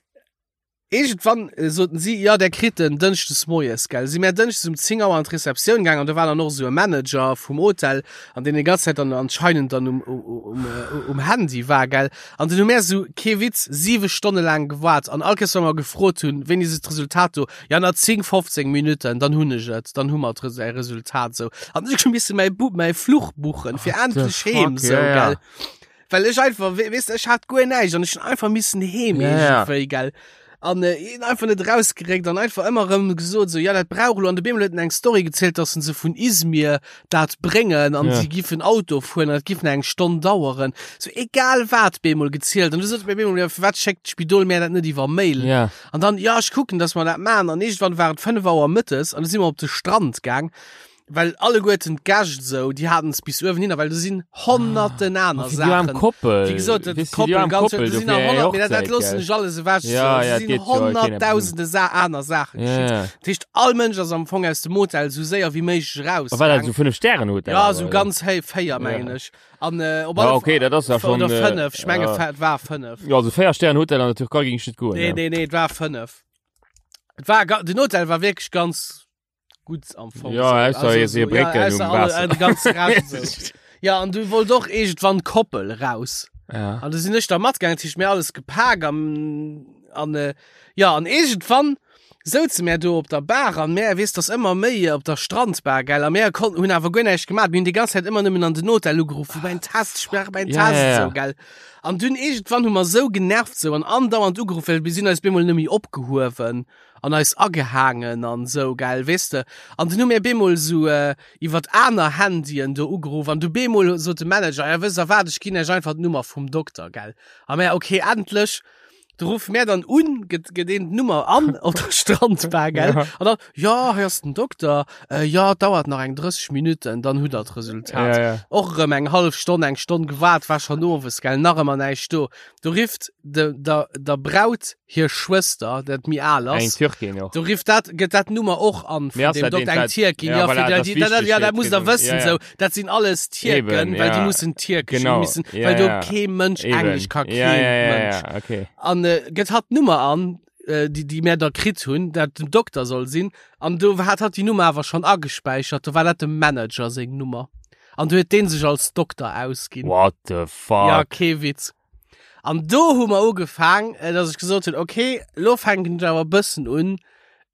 Iergendwann soten si, jo, där kritt en dënschdes moies, gell. Si mär dënschdes um 10 Auer an d'Receptioun gaang an do war dann och esou e Manager vum Hotel an deen déi ganz Zäit dann anscheinend dann um, um, um Handy war, gell. An dunn hu mär esou, kee Witz, siwe Stonne laang gewaart an all Kéiers, wa mer gefrot hunn, wéini ass d'Resultat do, jo, na 10, 15 Minutten, dann hunn ech et, dann hu mer d'Res-, äi Resultat, esou. An ech hu misse mäi Bu-, mäi Fluch buchen fir What the endlech heem, fuck, esou, ja, ja. gell. Well ech einfach, we weess de, ech hat guer näischt an ech hunn einfach missen heem Ja, ja. iergendwéi, gell. An äh, een einfach net rausgeréckt an einfach ëmmer rëm gesot so ja dat brauch lo an de Bemol huet en eng Story gezielt, dass se vun Izmir dat bréngen an Ja. sie giffen Auto fueren an dat giff eng Stonn daueren. So egal wat Bemol gezielt an du sot mir Bemol ja, firwat schéckt d'Spidol mär dat net iwwer Mail? Ja. An dann ja ech kucken, dass mer dat man an iergendwann war et 5 Auer mëttes an du si mer op de Strand gaang well alleguerten d'Gäscht esou, déi haten es bis uewen hin, well do sinn honnerten aner Fir déi arm Saachen. Koppel. Wéi gesot, dat Weess du, déi Koppel arm ganz, Koppel, do sinn dofir nach eng 100, mee dat, dat Hochzäit, loossen gell. ech alles ewech. Ja, so. ja, Do et sinn geet jo, keen eppes un. honnerttausende Sa aner Saachen Ja, geschitt. ja. Dat heescht, all Mënsch ass am Fong aus dem Hotel sou séier wéi méiglech A war dat rausgaang. sou 5 Stären Hotel? Ja, awer, sou oder? ganz héi, 4 mengen Ja. ech. An äh, op Ja, alle okay, dat ass ja Fall, schon, oder äh, 5, ech menge ja. et war 5. Ja, also 4 Stären Hotel an der Türkei ging ech net goen. Nee, ja. nee, nee, et war 5. Et war, ga- den Hotel war wierklech ganz gut am Fong. Ja, so. ausser hier so, si Brécken ja, um ausser alle, Waasser. äh, de ganze Rest so. Ja, an du wollt och irgendwann Koppel raus. Ja. An du sinn ech da matgaangen, dat heescht mir alles gepak an, an äh, ja, an irgendwann souze mär do op der Bar an mär, weess, dass ëmmer méi op der Strandbar, gell, a mär konnten, hunn awer guer näischt gemaat, mir hunn déi ganz Zäit ëmmer nëmmen an den Hotel ugeruff, wou mäin Test, ech brauch mäin Ja, Test, ja, ja. sou, gell. An dunn irgendwann hu mer sou genervt sou an andauernd ugeruff, well mir sinn eis bemol nëmme opgehuewen an eis agehaangen an sou, gell, weess de. An dunn hu mir bemol sou iwwert aner Handyen do ugeruff an du bemol sot de Manager, ja wësst der wat, ech ginn iech einfach d'Nummer vum Dokter, gell. A mär, okay, endlech. Du ruffe mär dann un, gëtt gëtt een d'Nummer an op der Strandbar, gell. Ja. An dann, ja, hei ass den Dokter, äh, ja, et dauert nach eng 30 Minutten, dann hutt der d'Resultat. Ja, ja. Och erëm eng hallef Stonn, eng Stonn gewaart, war schonn owes, gell, nach ëmmer näischt do. Do rifft de, der, der Braut hir Schwëster, dat méi al Eng ass, Türkin och. do rifft dat, gëtt dat Nummer och an Mee vun ass dem dat Dokter, deen, eng dat- Tierkin, ja, ja, voilà, fir dat dat, ass dat, dat, wichteg ja, fir dat musst der d'Gesond- wëssen, ja, ja. sou, dat sinn alles Tierken, Eben, well déi ja. mussen Tierkesch, Genau, déi mussen, ja, well do ja. kee Mënsch Eben. Englesch ka, Ja, kee ja, ja, Mënsch. ja, okay. An äh, gëtt hatt d'Nummer an, äh, déi, déi mär da kritt hunn, dat den Dokter soll sinn, an do hat hatt déi Nummer awer schonn agespäichert, do war dat dem Manager seng Nummer. An du huet deen sech als Dokter ausginn. What the fuck? Ja, kee Witz. An do hu mer ugefaang, äh, dass ech gesot hunn, okay, lo fänken ech awer e bëssen un,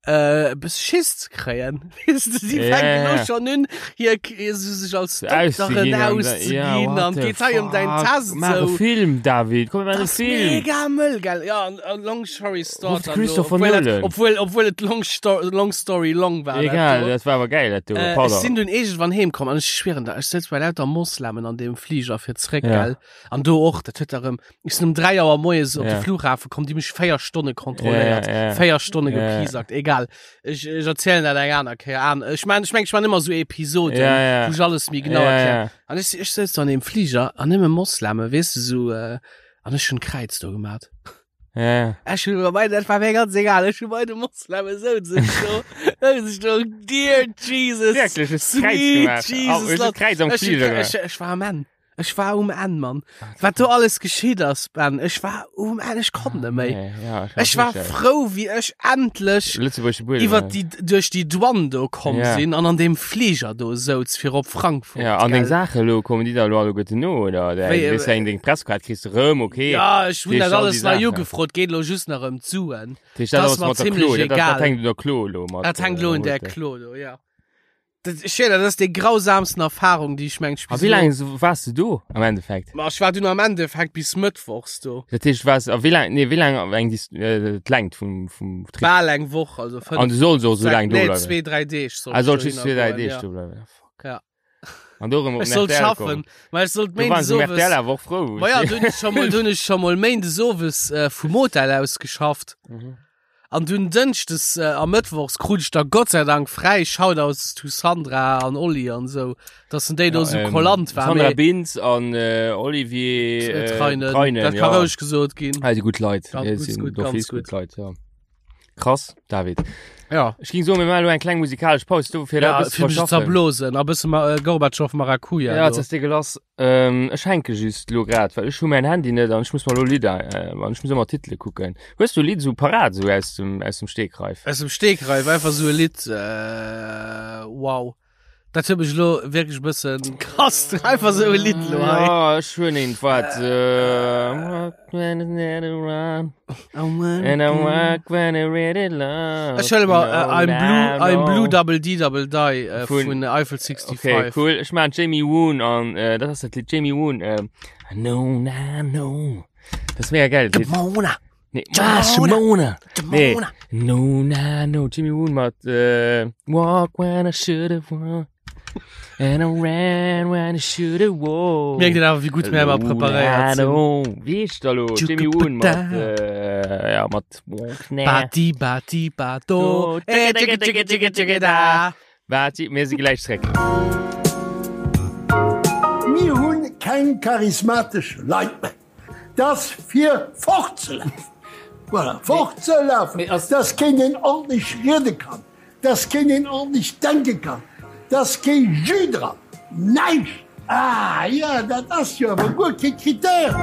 äh, e bësse Schiss ze kréien. Weess de, si Ja, fänken ja, lo ja. schonn un, hir k- so sech als Dokteren Auszeginn an da- ja, auszeginn what an the geet hei ëm däin fuck? Test Maach e sou. Film, David, komm, mir maachen Das e ass Film. mega mëll, gell? Ja, an, an long story short Ruft dann lo, Christopher obwuel dat, Nolan. obwuel, obwuel et long, sto long story long war. dat Egal, do. dat war awer geil, dat do. Äh, ech Pardon. sinn dunn iergendwann heem komm an ech schwieren der, ech souz bei lauter Moslemen an deem Fliger fir zréck, Ja. gell? An do och, dat huet erëm, ech sinn um 3 Auer moies op de Ja. Flughafen komm, déi mech 4 Stonne kontrolléiert, Ja, ja. 4 Stonne Ja, ja. gepiesackt, egal. Ech, ech erzielen dat eng aner Kéier an. Ech man, ech meng, ech man ëmmer sou Episoden, Ja, ja. wou ech alles méi genau Ja, erklären. ja. An ech, ech souz do an deem Fliger an nëmme Mosleme, weess de, sou, äh, an ech hunn d'Kräiz do gemat. Ja. Ech hunn bei dat war mir ganz egal, ech hunn bei de Mosleme souz ech do, souz ech do, dear Jesus, Wierklech, hues d'Kräiz sweet gemaach. Oh, Jesus, hues du Lord. d'Kräiz am Ech, Fliger gemaach? ech, ech war am Enn. Ech war um Enn, Mann. Wat do alles geschitt ass, Ben, ech war um Enn, ech konnt net méi. Nee, ja, ich Ech war frou, wéi ech endlech Lëtzebuergesche Buedem. iwwer déi, duerch déi Douane do komm Ja. sinn an an deem Fliger do souz fir op Frankfurt. Ja, an deng gell? Saache lo, kommen déi da lo alleguerten no, oder? Wéi, Wéi, äh, weess eng deng Presskaart kriss de rëm, okay. Ja, ech hunn Deeg dat all alles déi nei Saachen. ugefrot, geet lo just nach ëm d'Suen. Dat heescht, dat das ass war mat der ziemlech Klo, dat, dat, egal. dat hänkt un der Klo lo mat. Dat hänkt äh, lo un der Hotel. Klo do, ja. Dat, ech schwéier, dat ass déi grausamsten Erfahrung, déi ech mengt A wéi laang waars du do am Endeffekt? Ma ech war dunn am Endeffekt bis Mëttwochs do. Dat heescht, waars, a wéi laang, nee, wéi laang eng déi, äh, d'Längt vum, vum Trip? Bal eng Woch, also fënnf, An du solls och sou laang do nee, bleiwen? zwee, dräi Deeg sollt Ah, ech sollt just dohinner zwee, dräi goen, Deeg ja. do bleiwen. Ah, fuck. Ja. An do erëm op Ech den sollt RTL schaffen, kommen. ma ech sollt Do waren méindes se um owes. RTL awer och frou. Ma ja, do hunn ech scho mol, do hunn ech scho mol méindes owes äh, vum Hotel aus geschafft. Mhm. An dunn Dënschdes äh, a Mëttwochs krut ech da Gott sei Dank fräi. Shoutouts to Sandra an Olli an sou, dass en déi do sou ähm, kollant war. Sandra Mee, Bintz an äh, Olivier äh, äh, Treinen, Treinen, dat ka ja. roueg gesot ginn. Ah, déi gutt Leit. Ganz Ja, gut, sinn gut, d'office ganz gut. gutt Leit, ja. Krass, David. Ja. Ech ging soen, mir maachen elo eng kleng musikalesch Paus do fir Ja, dat e bësse fir mech ze verschaffen. zerblosen. A bësse ma, äh, Gorbatschow Maracuja. Ja, do. jetzt ass dir gelass. Ähm, ech hänke just lo grad, well ech hu mäin Handy net an ech muss mer lo Lidder, äh, an ech muss ëmmer Titele kucken. Hues du e Lidd sou parat, sou aus dem, aus dem Stegreif? Aus dem Stegreif, einfach sou e Lidd, äh, wow. Dat huet mech lo wierklech e bëssen krass, einfach sou e Lidd lo hei. Ja, ech hunn eent, wat, äh, And I walk when I really love. Ech huele mer äh, I'm Blue, I'm Blue Double D Double Die äh, Vun- vun Eiffel 65. Okay, cool. Ech maan Jamie Woon an äh, dat ass dat Lied Jamie Woon. Ähm, I know, I know. Dat ass mega geil. Lied. Mona. Nee, ah, Shimona. Nee. No, na, no. Jimmy Woon mat äh, Walk when I should have walked. And I ran when I should have walked. Mierkt een awer, wéi gutt mir ëmmer preparéiert sinn. No, wéi heescht da lo? Jimmy Woon mat, äh, ja, mat Walk, na. Bati, bati, bato. Do, Eh, tschicke, tschicke, tschicke, tschicke, da. Waart, mir si gläich zréck. Mir hunn keng charismatesch Leit méi. Dass fir fortzelafen, voilà, fortzelafen, dass keen een ordentlech riede kann, dass keen een ordentlech denke kann, dass kee Jus dran, näischt! Ah jo, dat ass jo awer guer kee Critère!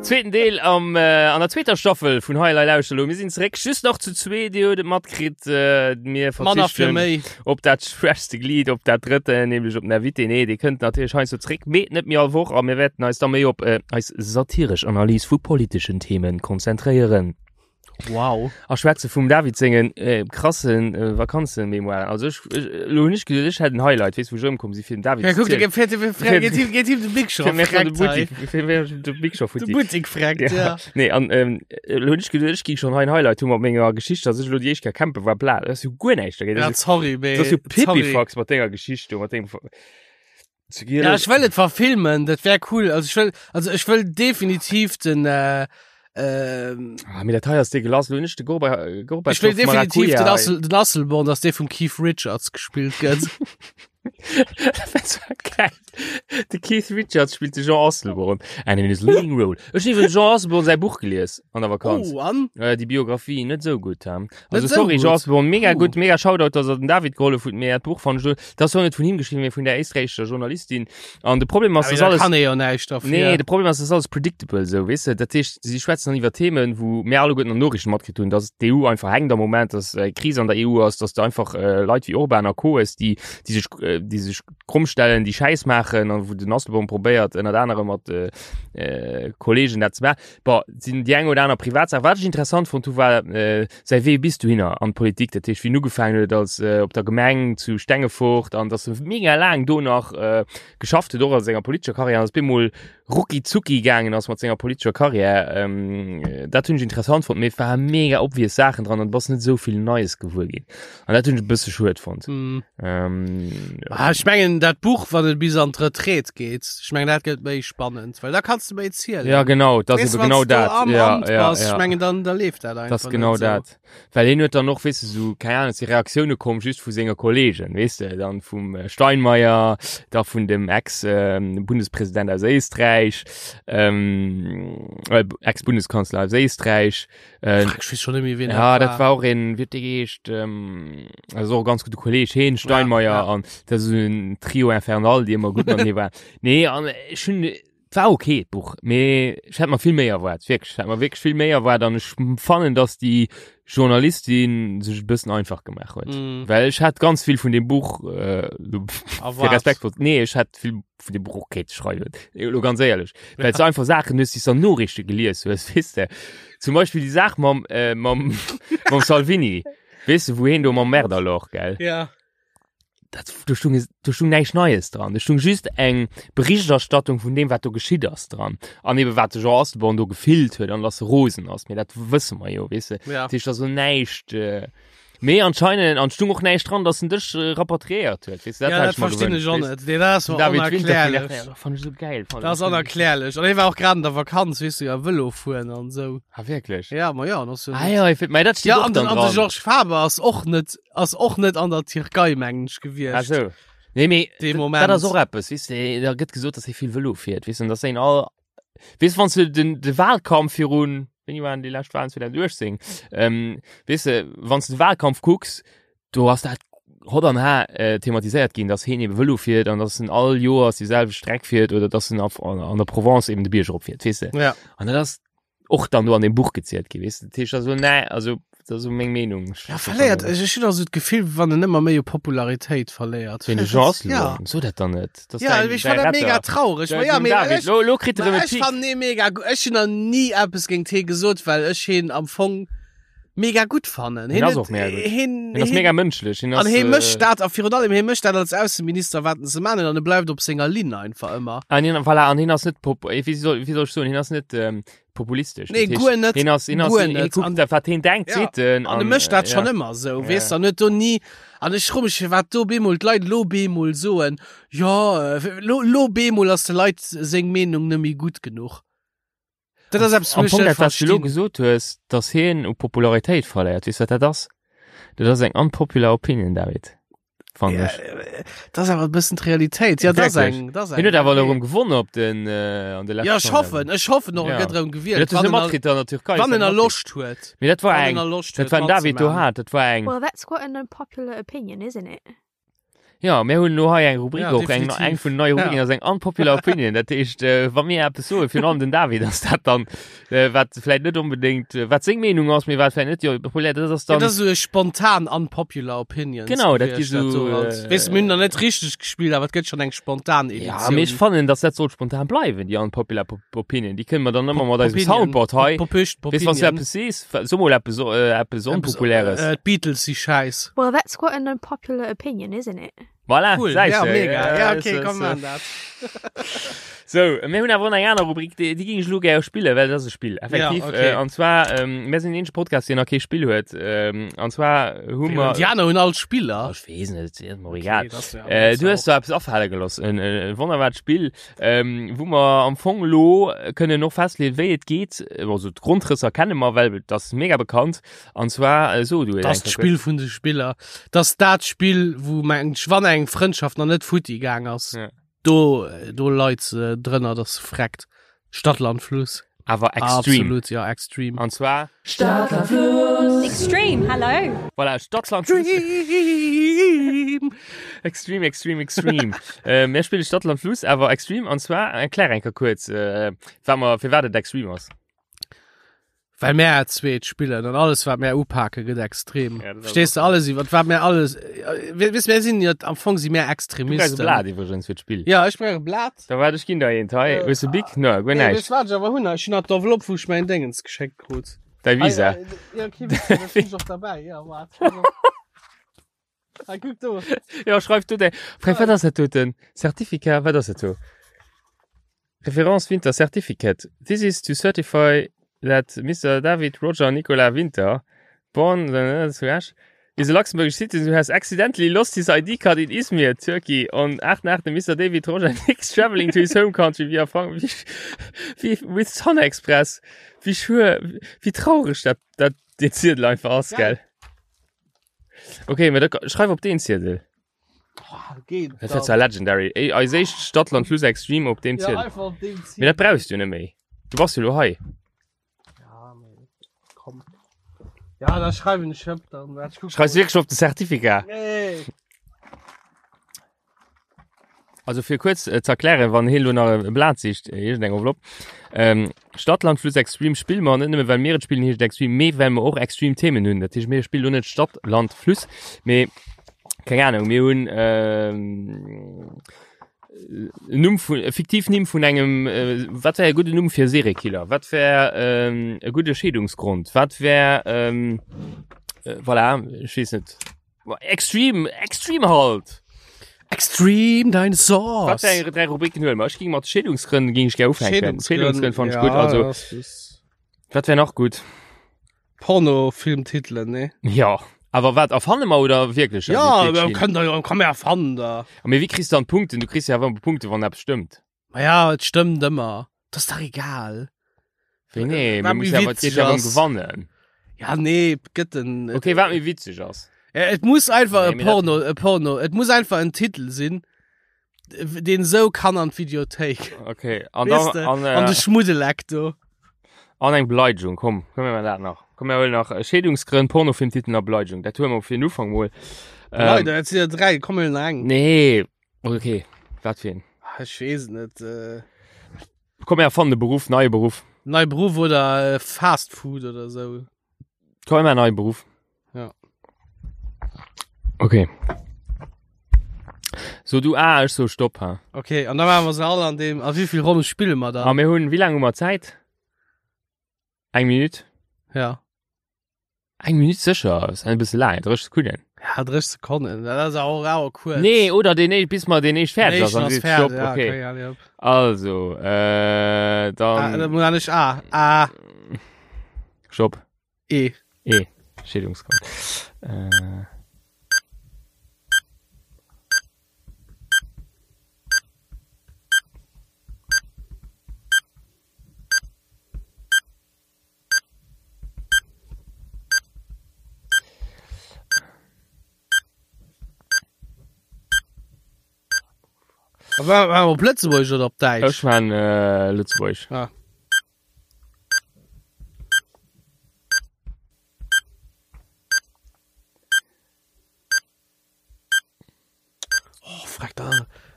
Zweeten Deel am, an der zweeter Staffel vun Hei Elei Lauschter Elo. Mir sinn zeréck, just nach zu zwee, Dir hutt et matkritt, mir Manner fir verzichten méi. op dat schwächste Glied, op dat drëtte, nämlech op den Invité. Nee, dee kënnt natierlech heiansdo zeréck, mee net méi all Woch a mir wäerten eis da méi op eis satiresch Analys vu politeschen Themen konzentréieren. Wow. A schwätze vum David sengen äh, krassen äh, Vakanzenmemoiren. Also ech, ech, lo hunn ech geduet, ech hätt en Highlight, weess wou ech erëmkomm si fir den David Ja, ze guck, der zielen. geet fährt, geet him, geet him de Big Show Fir mir de freckt hei. Boutique, fir mir de Big Show De futti. Boutique freckt, Ja. ja. Nee, an ähm, lo hunn ech geduet, ech ging schon hei en Highlight hu mat menger Geschicht, dass ech lo déi éischt Kéier campen war, bla, dat ass jo guer näischt dagéint. Ja, Dat ass sorry, jo, mee. dat ass jo sorry. Pipifax mat denger Geschicht do, mat dengem Zu Ja, Giel. ech wëll et verfilmen, dat wär cool. Also ech wëll, also ech wëll definitiv den, äh, ähm, Ah, mee dat hei ass degueulass. Lo hunn ech de Gorba, Gorbatschow ech wëll definitiv den, Maracuja. Assel, den Asselborn, dass dee vum Keith Richards gespillt gëtt. Dat war geil. De Keith Richards spillt de Jean Asselborn and in his leading role. Ech hunn iwwregens Jean Asselborn säi Buch gelies an der Vakanz. Oh, an? Äh, déi Biografie net sou gutt. Hein? Also Net sou sorry gutt? Jean Asselborn, mega Oh. gutt, mega Shoutout, dass er den David gehollef huet, mee dat Buch fand ech lo, dat ass jo net vun him geschriwwen, mee vun der éisträichescher Journalistin. An de Problem ass, Aber dass da alles kann ee jo näischt dafür. Nee, de Problem ass, das ist alles predictable so, weess de? Dat heescht, si schwätzen dann iwwer Themen, wou mir alleguerten an Noriichten matkritt hunn, dass d'EU einfach hänkt am Moment, dass äh, Kris an der EU ass, dass du einfach äh, Leit wéi Orban a Co. hues, déi, déi sech, äh, déi sech kromm stellen, déi Schäiss maachen an wou den Asselborn probéiert, ënnert anerem mat äh, äh, Kollegen dat ze maachen. Bon, sinn déi eng oder aner Privatsaach. Wat ech interessant fonnt hu war äh, säi Wee bis dohinner an d'Politik, dat heescht wéi en ugefaangen huet als äh, op der Gemeng zu Stengefort an dass e mega laang do nach äh, geschafft huet, och a senger politescher Karriär, an ass bemol rucki zucki gaangen ass mat senger politescher Karriär. Ähm, dat hunn ech interessant fonnt, mee et war mega obvious Saachen dran an du bass net esou vill Neies gewuer ginn. An dat hunn ech e bësse schued fonnt. Hm. Ähm, Ah, ech mengen dat Buch, wann et bis an d'Retraite geet, ech mengen dat gëtt méi spannend, well da kanns du méi zielen. ja genau, dat ass Weess, ebe genau wanns du dat. am Ja, Amt ja, bass, ja. ech mengen dann da leeft dat einfach. Das ist genau net so. dat. Well hien huet dann och, weess de, sou, keng Ahnung, si Reaktioune komm just vu senger Kollegen, weess de, dann vum äh, Steinmeier, da vun dem Ex-Bundespräsident aus Éisträich, ähm, äh, Ex-Bundeskanzler aus Éisträich. Äh, Fuck, ech weess schon net méi, wien ja, dat war och een, wéi huet dee geheescht, ähm, also och e ganz gudde Kolleg, heen, Steinmeier, ja. an dat ass en Trio Infernal, déi ëmmer gutt matenee waren. Nee, an ech hunn, Et war ok d'Buch, mee ech hätt mer vill méi erwaart, wierklech, ech hätt mer wierklech vill méi erwaart an ech fannen, dass déi Journalistin sech e bëssen einfach gemaach huet. Mm. Well ech hat ganz vill vun dem Buch äh, lo- fir Erwaart. respektvoll, nee, ech hat vill vun dem Buch och kéinte schreiwen, lo ganz éierlech, well s du einfach Saachen hues, déi s du an Noriichte gelies hues, weess de. Zum Beispill déi Saach mam, äh, mam, mam Salvini, weess de, wou heen do mam Märderloch, gell? Ja. dat, do stung, do stung näischt Neies dran. Do stung just eng Berichterstattung vun deem, wat do geschitt ass dran. An eben, wat de Jean Asselborn do gefillt huet an dass e rosen ass. Mee dat wësse mer jo, weess de. Ja. Dat heescht, da ass näischt. Äh, mee anscheinend, an stung och näischt dran, dass en dech äh, rapatriéiert huet. Weess de, Ja, dat hätt dat ech mer verstinn gewënscht, ech och weess net. Nee, dat ass de. mer David Winter vun onerklärlech. RTL, dat fand ech so geil. Fand Dat ass ech. onerklärlech. An hie war och grad an der Vakanz, weess du, ja, Vëlo fueren an esou. Ah, wierklech? Ja, ma ja, an ass jo Ah, ja, ich, mei, dat steet Ja, och an den, dann an de dran. Georges Faber ass och net ass och net an der Tierkei mengen ech Ah, gewiescht. so. Nee, mee Dee dat- Moment. Dat ass och eppes, weess de, da gëtt gesot, dass hie vill Vëlo fiert, weess de, an dass een all, weess, wann s du den, de Wahlkampf virun, wéini waren déi lescht Wahlen, 2018, ähm, weess de, wann s du de Wahlkampf kucks, do ass dat hot an har äh, thematiséiert ginn, dass hien eben Vëlo fiert an dass en all Joers déi selwecht Streck fiert oder dass en auf, an, an der Provence eben de Bierg eropfiert, weess de. Ja. An dat ass och dann do an dem Buch gezielt gi weess de. Dat heescht also nee, also dat ass so meng Meenung. Ja, verléiert, ech ech hunn also d'Gefill, wann en ëmmer méi u Popularitéit verléiert. Ween de Jean Ja. Asselborn, so dat dann net. Dat ass Ja, däin- ech däi fand dat mega Retter. traureg. Ma Däi- ja, den mee David, ech, lo, lo kritt er ma erëm e ech Pic. fand nee mega gu- Ech hunn nach ni eppes géint hee gesot, well ech heen am Fong. mega gutt fannen. Hien ass och mega gutt. Hien, Hien ass mega mënschlech. Hien An ass, hie mécht äh, dat a virun allem hie mécht dat als Ausseminister wat en ze man huet an e bleift op senger Linn einfach ëmmer. An hien, voilà, an hien ass net pop, eh, wéi soll, wéi soll ech soen, hien ass net ähm, populistesch. Nee, Dat heescht, guer net, Hien ass, hien ass, guer hien, hien net. kuckt An- dat, wat hien denkt, Ja, seet en. An e mécht dat äh, schon ja. ëmmer esou, Ja. weess de, an huet do ni, an ech fro mech firwat do bemol d'Leit lo bemol soen, jo, äh, lo, lo bemol ass de Leit seng Meenung net méi gutt genuch. Dat ass eppes, Am wou ech Fong net dat, wat du lo verstinn. gesot hues, dass hien u Popularitéit verléiert, weess wat dat ass? Dat ass eng unpopular opinion, David. Fannen Ja, ech. äh, dat ass awer e bëssen d'Realitéit. Ja, dat ass Wierklech. eng, dat ass eng. Hien huet awer okay. elo erëm gewonnen op den, äh, an de leschten Ja, ech hoffen, ech hoffen och, e Ja. gëtt erëm gewielt. Dat hues Wann du en a- matkritt an der Türkei. Wann en dat a matkritt. Loscht huet. Mee dat war Wann eng, en a Loscht dat huet war den David do matzumachen. hat, dat war eng. Well, that's quite an unpopular opinion, isn't it? Ja, mir hunn elo hei eng Rubrik Ja, och, eng, definitiv. eng vun neie Rubriken Ja. ass eng unpopular opinion. Dat heescht, äh, wa mir eppes soen, virun allem den David, ass dat dann, äh, wat vläicht net unbedingt, äh, wat seng Meenung ass, mee wat vläicht net jo populär, dat ass Ja, dann, dat ass esou e spontan unpopular opinions. Genau, dat gi gewiescht, dat so, do halt. äh, Weess du, mir hunn nach net richteg gespillt, awer et gëtt schon eng spontan Editioun. ja, mee ech fannen, dass dat sollt spontan bleiwen, déi unpopular Pop- Opinion. Déi kënne mer dann ëmmer mat eisem Popinion. Soundboard hei. Pop- Popüscht, Weess, wann du Popinion. eppes sees, so mol eppes, äh, eppes Onpopuläres. Äh, D'Beatles si schäiss. Well, that's quite an unpopular opinion, isn't it? Voilà, Cool, säis ja, de. mega. Ja, okay, so, komm, so. man dat. So, mir hunn awer och nach eng aner Rubrik, déi, déi géing ech elo gär spillen, well dat ass e Spill, effektiv. Ja, okay. Äh, an zwar, ähm, mir sinn den eenzege Podcast, deen nach kee Spill huet. Ähm, an zwar hu mer... Déi aner hunn all Spiller. Oh, ech weess net, ist mir egal. Okay, das, ja, Äh, das du hues auch. do eppes afale gelooss, en, en wonnerbart Spill, ähm, wou mer am Fong elo kënnen och festleeën, wéi et geet. Also d'Grondrësser kenne mer, well dat ass mega bekannt. An zwar, äh, so du et Das eng Kéier Spill vun de Spiller. Das dat Spill, wou meng wann eng Frëndschaft nach net futti gaang ass. Ja. Do, do leit se drënner, dass se freckt. Stadt, Land, Fluss. Awer extreme. Absolut, ja, extreme. An zwar, Extreme, hello. voilà, Stadt, Land, Fluss. Extreme! Extreme, extreme, extreme. äh, mir spille Stadt, Land, Fluss, awer extreme. An zwar, erklär eng Kéier kuerz, äh, wat mer, firwat et extreme ass. Well mär zweet spillen an alles wat mär upake gëtt extrem. Ja, dat ass Verstees du och alles iwwer wat mär alles äh, weess mär sinn jo am Fong si mär Du brauchs e Extremisten. Blat iwwregens fir d'Spill. Ja ech brauch e Blat. Da waart ech ginn der eent hei. Hues de Bic? No, guer Nee, näischt. weess wat ech awer hunn? Ech hunn nach d'Enveloppe wou ech mäin Déngens geschéckt krut. Däi Visa. Ah, ja, okay, weess du, dat hunn ech och derbäi. Ja, waart. Hei kuck do. Ja, schreif du däi. Frei, wat ass dat doten? Certificat, wat ass dat do? Référence Winter Certificate. This is to certify that Mister David Roger Nicolas Winter, born zu Esch, is a Luxembourgish citizen who has accidentally lost his ID card in Izmir, Turkey, on 8.8. Mister David Roger Nix traveling to his home country via Frank wéi, with Sun Express. Wéi schuer, wéi traureg dat, dat dee Ziedel einfach ass, gell? Okay, mä da schreif op deen Ziedel. Geht Dat wär zwar legendary. Ey, eis éischt Stadt Land Fluss Extreme op deem Ja, Ziedel. einfach op deem Ziedel. Mee dat brauchs du net méi. Du bass jo lo hei. Ja, mee komm. Ja, da schreiwen ech op dann. Wart, ich guck Schreifs mal. wierklech op de Certificat? Nee. Also fir kuerz äh, ze erklären, wann hien lo nach e Blat sicht, äh, iergendeng Enveloppe. Ähm, Stadt Land Fluss Extreme spille mer net nëmme well mir et spillen, heescht et Extreme, mee well mer och extreme Themen hunn. Dat heescht mir spillen lo net Stadt Land Fluss, mee keng Ahnung, mir hunn ähm, en Numm vun, e fiktiv Nimm vun engem, äh, wat wär e gudden Numm fir e Seriekiller? Wat wär ähm, e gudde Scheedungsgrond? Wat wär ähm, äh, voilà, ech weess net. Extreme, extreme halt! Extreme Dinosaurs. Wat fir eng dräi Rubriken huele mer? Ech ging mat Scheedungsgrënn ging ech gär ufänken. Scheedungsgrënn fand ech gutt. Also, wat wär nach gutt? Pornofilmtitelen, ne? Ja. Awer wat erfanne mer oder wierklech? Ja, kënnt der jo, komm mir erfannen der. Mee wéi kriss du dann d'Punkten? Du kriss jo awer Punkte wann eppes stëmmt. Ma ja, et stëmmt ëmmer. Dat ass dach egal. Wéi nee, Wat mir méi mussen awer, et witzeg geet ja ëm ass. gewannen. Ja, nee, gëtt en. Okay, wat méi witzeg ass. Ja, et muss einfach Nee, e mee dat- Porno, e Porno, et muss einfach en Titel sinn, deen esou kann an d'Videothéik. Okay, an Weess dann, de, an, an äh, de Schmuddeleck do. an eng Beleidigung, komm, komm mir dat nach. Komm, mir huelen nach äh, Scheedungsgrënn, Pornofilmtiteln a Beleidigung. Dat huele mer fir den Ufank mol. Ähm, Leider, et sinn ja dräi, komm mir huelen nach eng. Nee, okay, wat fir een? Ah, Ech weess et net. Äh, Komm, mir erfannen e Beruff, neie Beruff. nei Beruff oder äh, Fast Food oder sou. Komm, mir neie Beruff. Ja. Okay. So du ah, ech so stopp ha. Okay, an da machen wir se alle an dem. A wéi vill Ronne spille mer A dann? mir hunn, wéi laang hu mer Zäit? Eng Minut? Ja. Eng Minutt sécher, ass e bësse laang, 30 Sekonnen. Ja, 30 Sekonnen, dat ass awer och awer kuerz. Nee, oder deen éischt, bis mer deen éischt fäerdeg ass, Den dann éischten seet ass Stopp, fäerdeg, ja, okay. okay, allez, hopp. Also, äh, Ah, dann da muss ich A, A, Stopp. E. E, Scheedungsgrond. Äh. War, war op Lëtzebuerg oder op Däitsch? Ech man äh, Lëtzebuerg. Ah. Oh, freck da.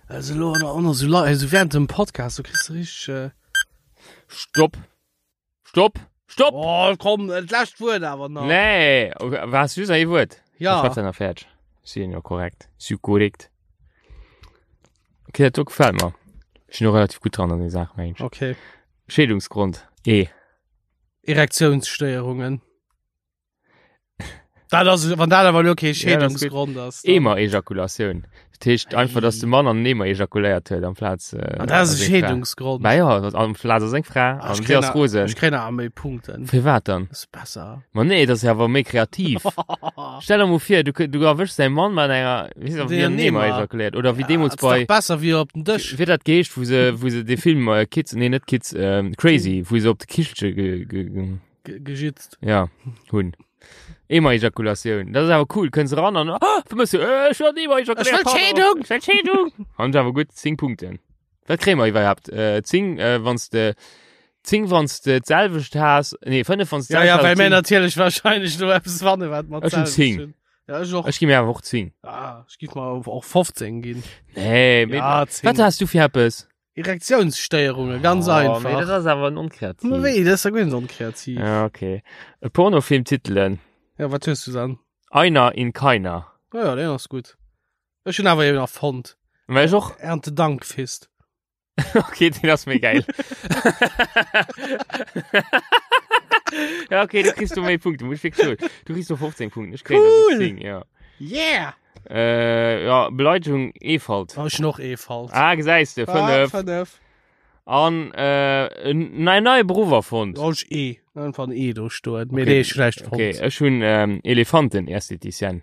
Also lo an an so also während dem Podcast, du kriegst du richtig. Äh Stopp. Stopp. Stopp. Oh, komm, das lescht Wuert awer nach. Nee, was just ein Wuert? Ja. Ich nach fertig. Si jo korrekt. Si korrekt. Okay, dat do gefällt mir. Ich bin noch relativ gut dran an der Sache, Mensch. Okay. Schädungsgrund. E. Erektionsstéierungen. Dat ass, wann dat awer lo kee Ja, dat ass gutt. Scheedungsgrond ass. dann- Emer-Ejakulatioun. Dat heescht einfach, dass de Mann an den Emer ejakuléiert huet amplaz. Äh, An dat ass e seng Fra. Scheedungsgrond. Ma ja, amplaz ass seng Fra Ah, an ech si kréien ass a- rosen. Ech kréien awer méi Punkten. Firwat dann? Das ist besser. Ma nee, dat ass ja awer méi kreativ. Stell der mol vir, du, du erwëschs däi Mann mat enger, wéi se, wéi Den en Emer Emer. ejakuléiert. Oder wéi Ja, deemools das ist bei. doch besser wéi op den Dësch. Wéi dat geheescht, wou se, wou se de Film äh, Kids, nee net Kids, ähm, Crazy, wou se op de Kichelche ge, ge, ge, Ge gejitzt. Ja, hunn. Emer-Ejakulatioun. Dat ass awer cool. Kënns eran an, ah, vermëss du, äh, ech wëll Emer-Ejakulatioun. Ech wëll Scheedung! Ech wëll Scheedung! Han awer gutt 10 Punkten. Wat kréie mer iwwerhaapt? Äh, 10, äh, wanns de, 10 wanns de d'selwecht has, nee, 5 wanns de Ja, ja, d'selwecht well has, mir 10. natierlech wahrscheinlech do eppes fanne wat mer Ech hunn d'selwecht 10. hunn. Ja, ech och. Ech gi mir awer och 10. Ah, ech giff mer och 15 ginn. Nee, mee, Ja, 10. wat has du fir eppes? Erektionsstéierungen, ganz Oh, einfach. Mee dat ass awer onkreativ. Ma wéi, dat ass ja guer net onkreativ. Ja, okay. E Pornofilmtitelen. Ja, wat hues du dann? Einer in keiner. Ja, ja, den ass gutt. Ech hunn awer eben erfonnt. Well ech och. Erntedankfest. Okay, den ass méi geil. ja, okay, du kriegst du méi Punkte, muss ich wirklich soen. Du kriegst du 15 Punkte, ich krieg Cool. 10, ja. Yeah! Äh, ja, Beleidigung Efalt. Oh, ech hunn och Efalt. Ah, gesäis de, Ah, 5. 5. An äh, en nei neie Beruff erfonnt. Oh, ech E. Einfach en E do stoen. Mee Okay. dee ech schlecht fonnt. Okay, ech hunn ähm, Elefanten-Estheticienne.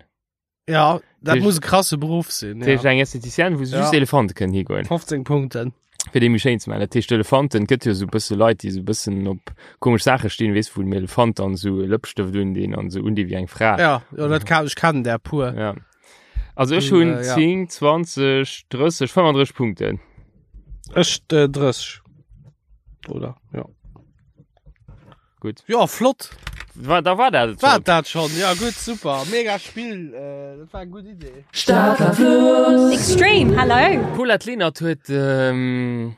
Ja, dat Tisch- muss e krasse Beruff sinn. Dat heescht Ja. eng Estheticienne, wou se just Ja. Elefante kënnen higoen. 15 Punkten. Fir déi méi schéin ze maachen. Dat heescht Elefanten, et gëtt jo sou bësse Leit, déi sou bëssen op komesch Saache stinn, weess, wou dem Elefant dann sou e Lëppstëft un deen an sou un déi wéi eng Fra. Ja, ja dat kann, ech kennen där puer. Ja. Also ech Hun, hunn äh, ja. 10, 20, 30, 35 Punkten. Ech äh, 30. Oder? Ja. Gutt. Ja, flott. War, da war dat et War schon. dat schon? Ja, gutt, super. Mega Spill. Äh, dat war eng gutt Idee. Extreme, hello. Paulette Lenert huet ähm,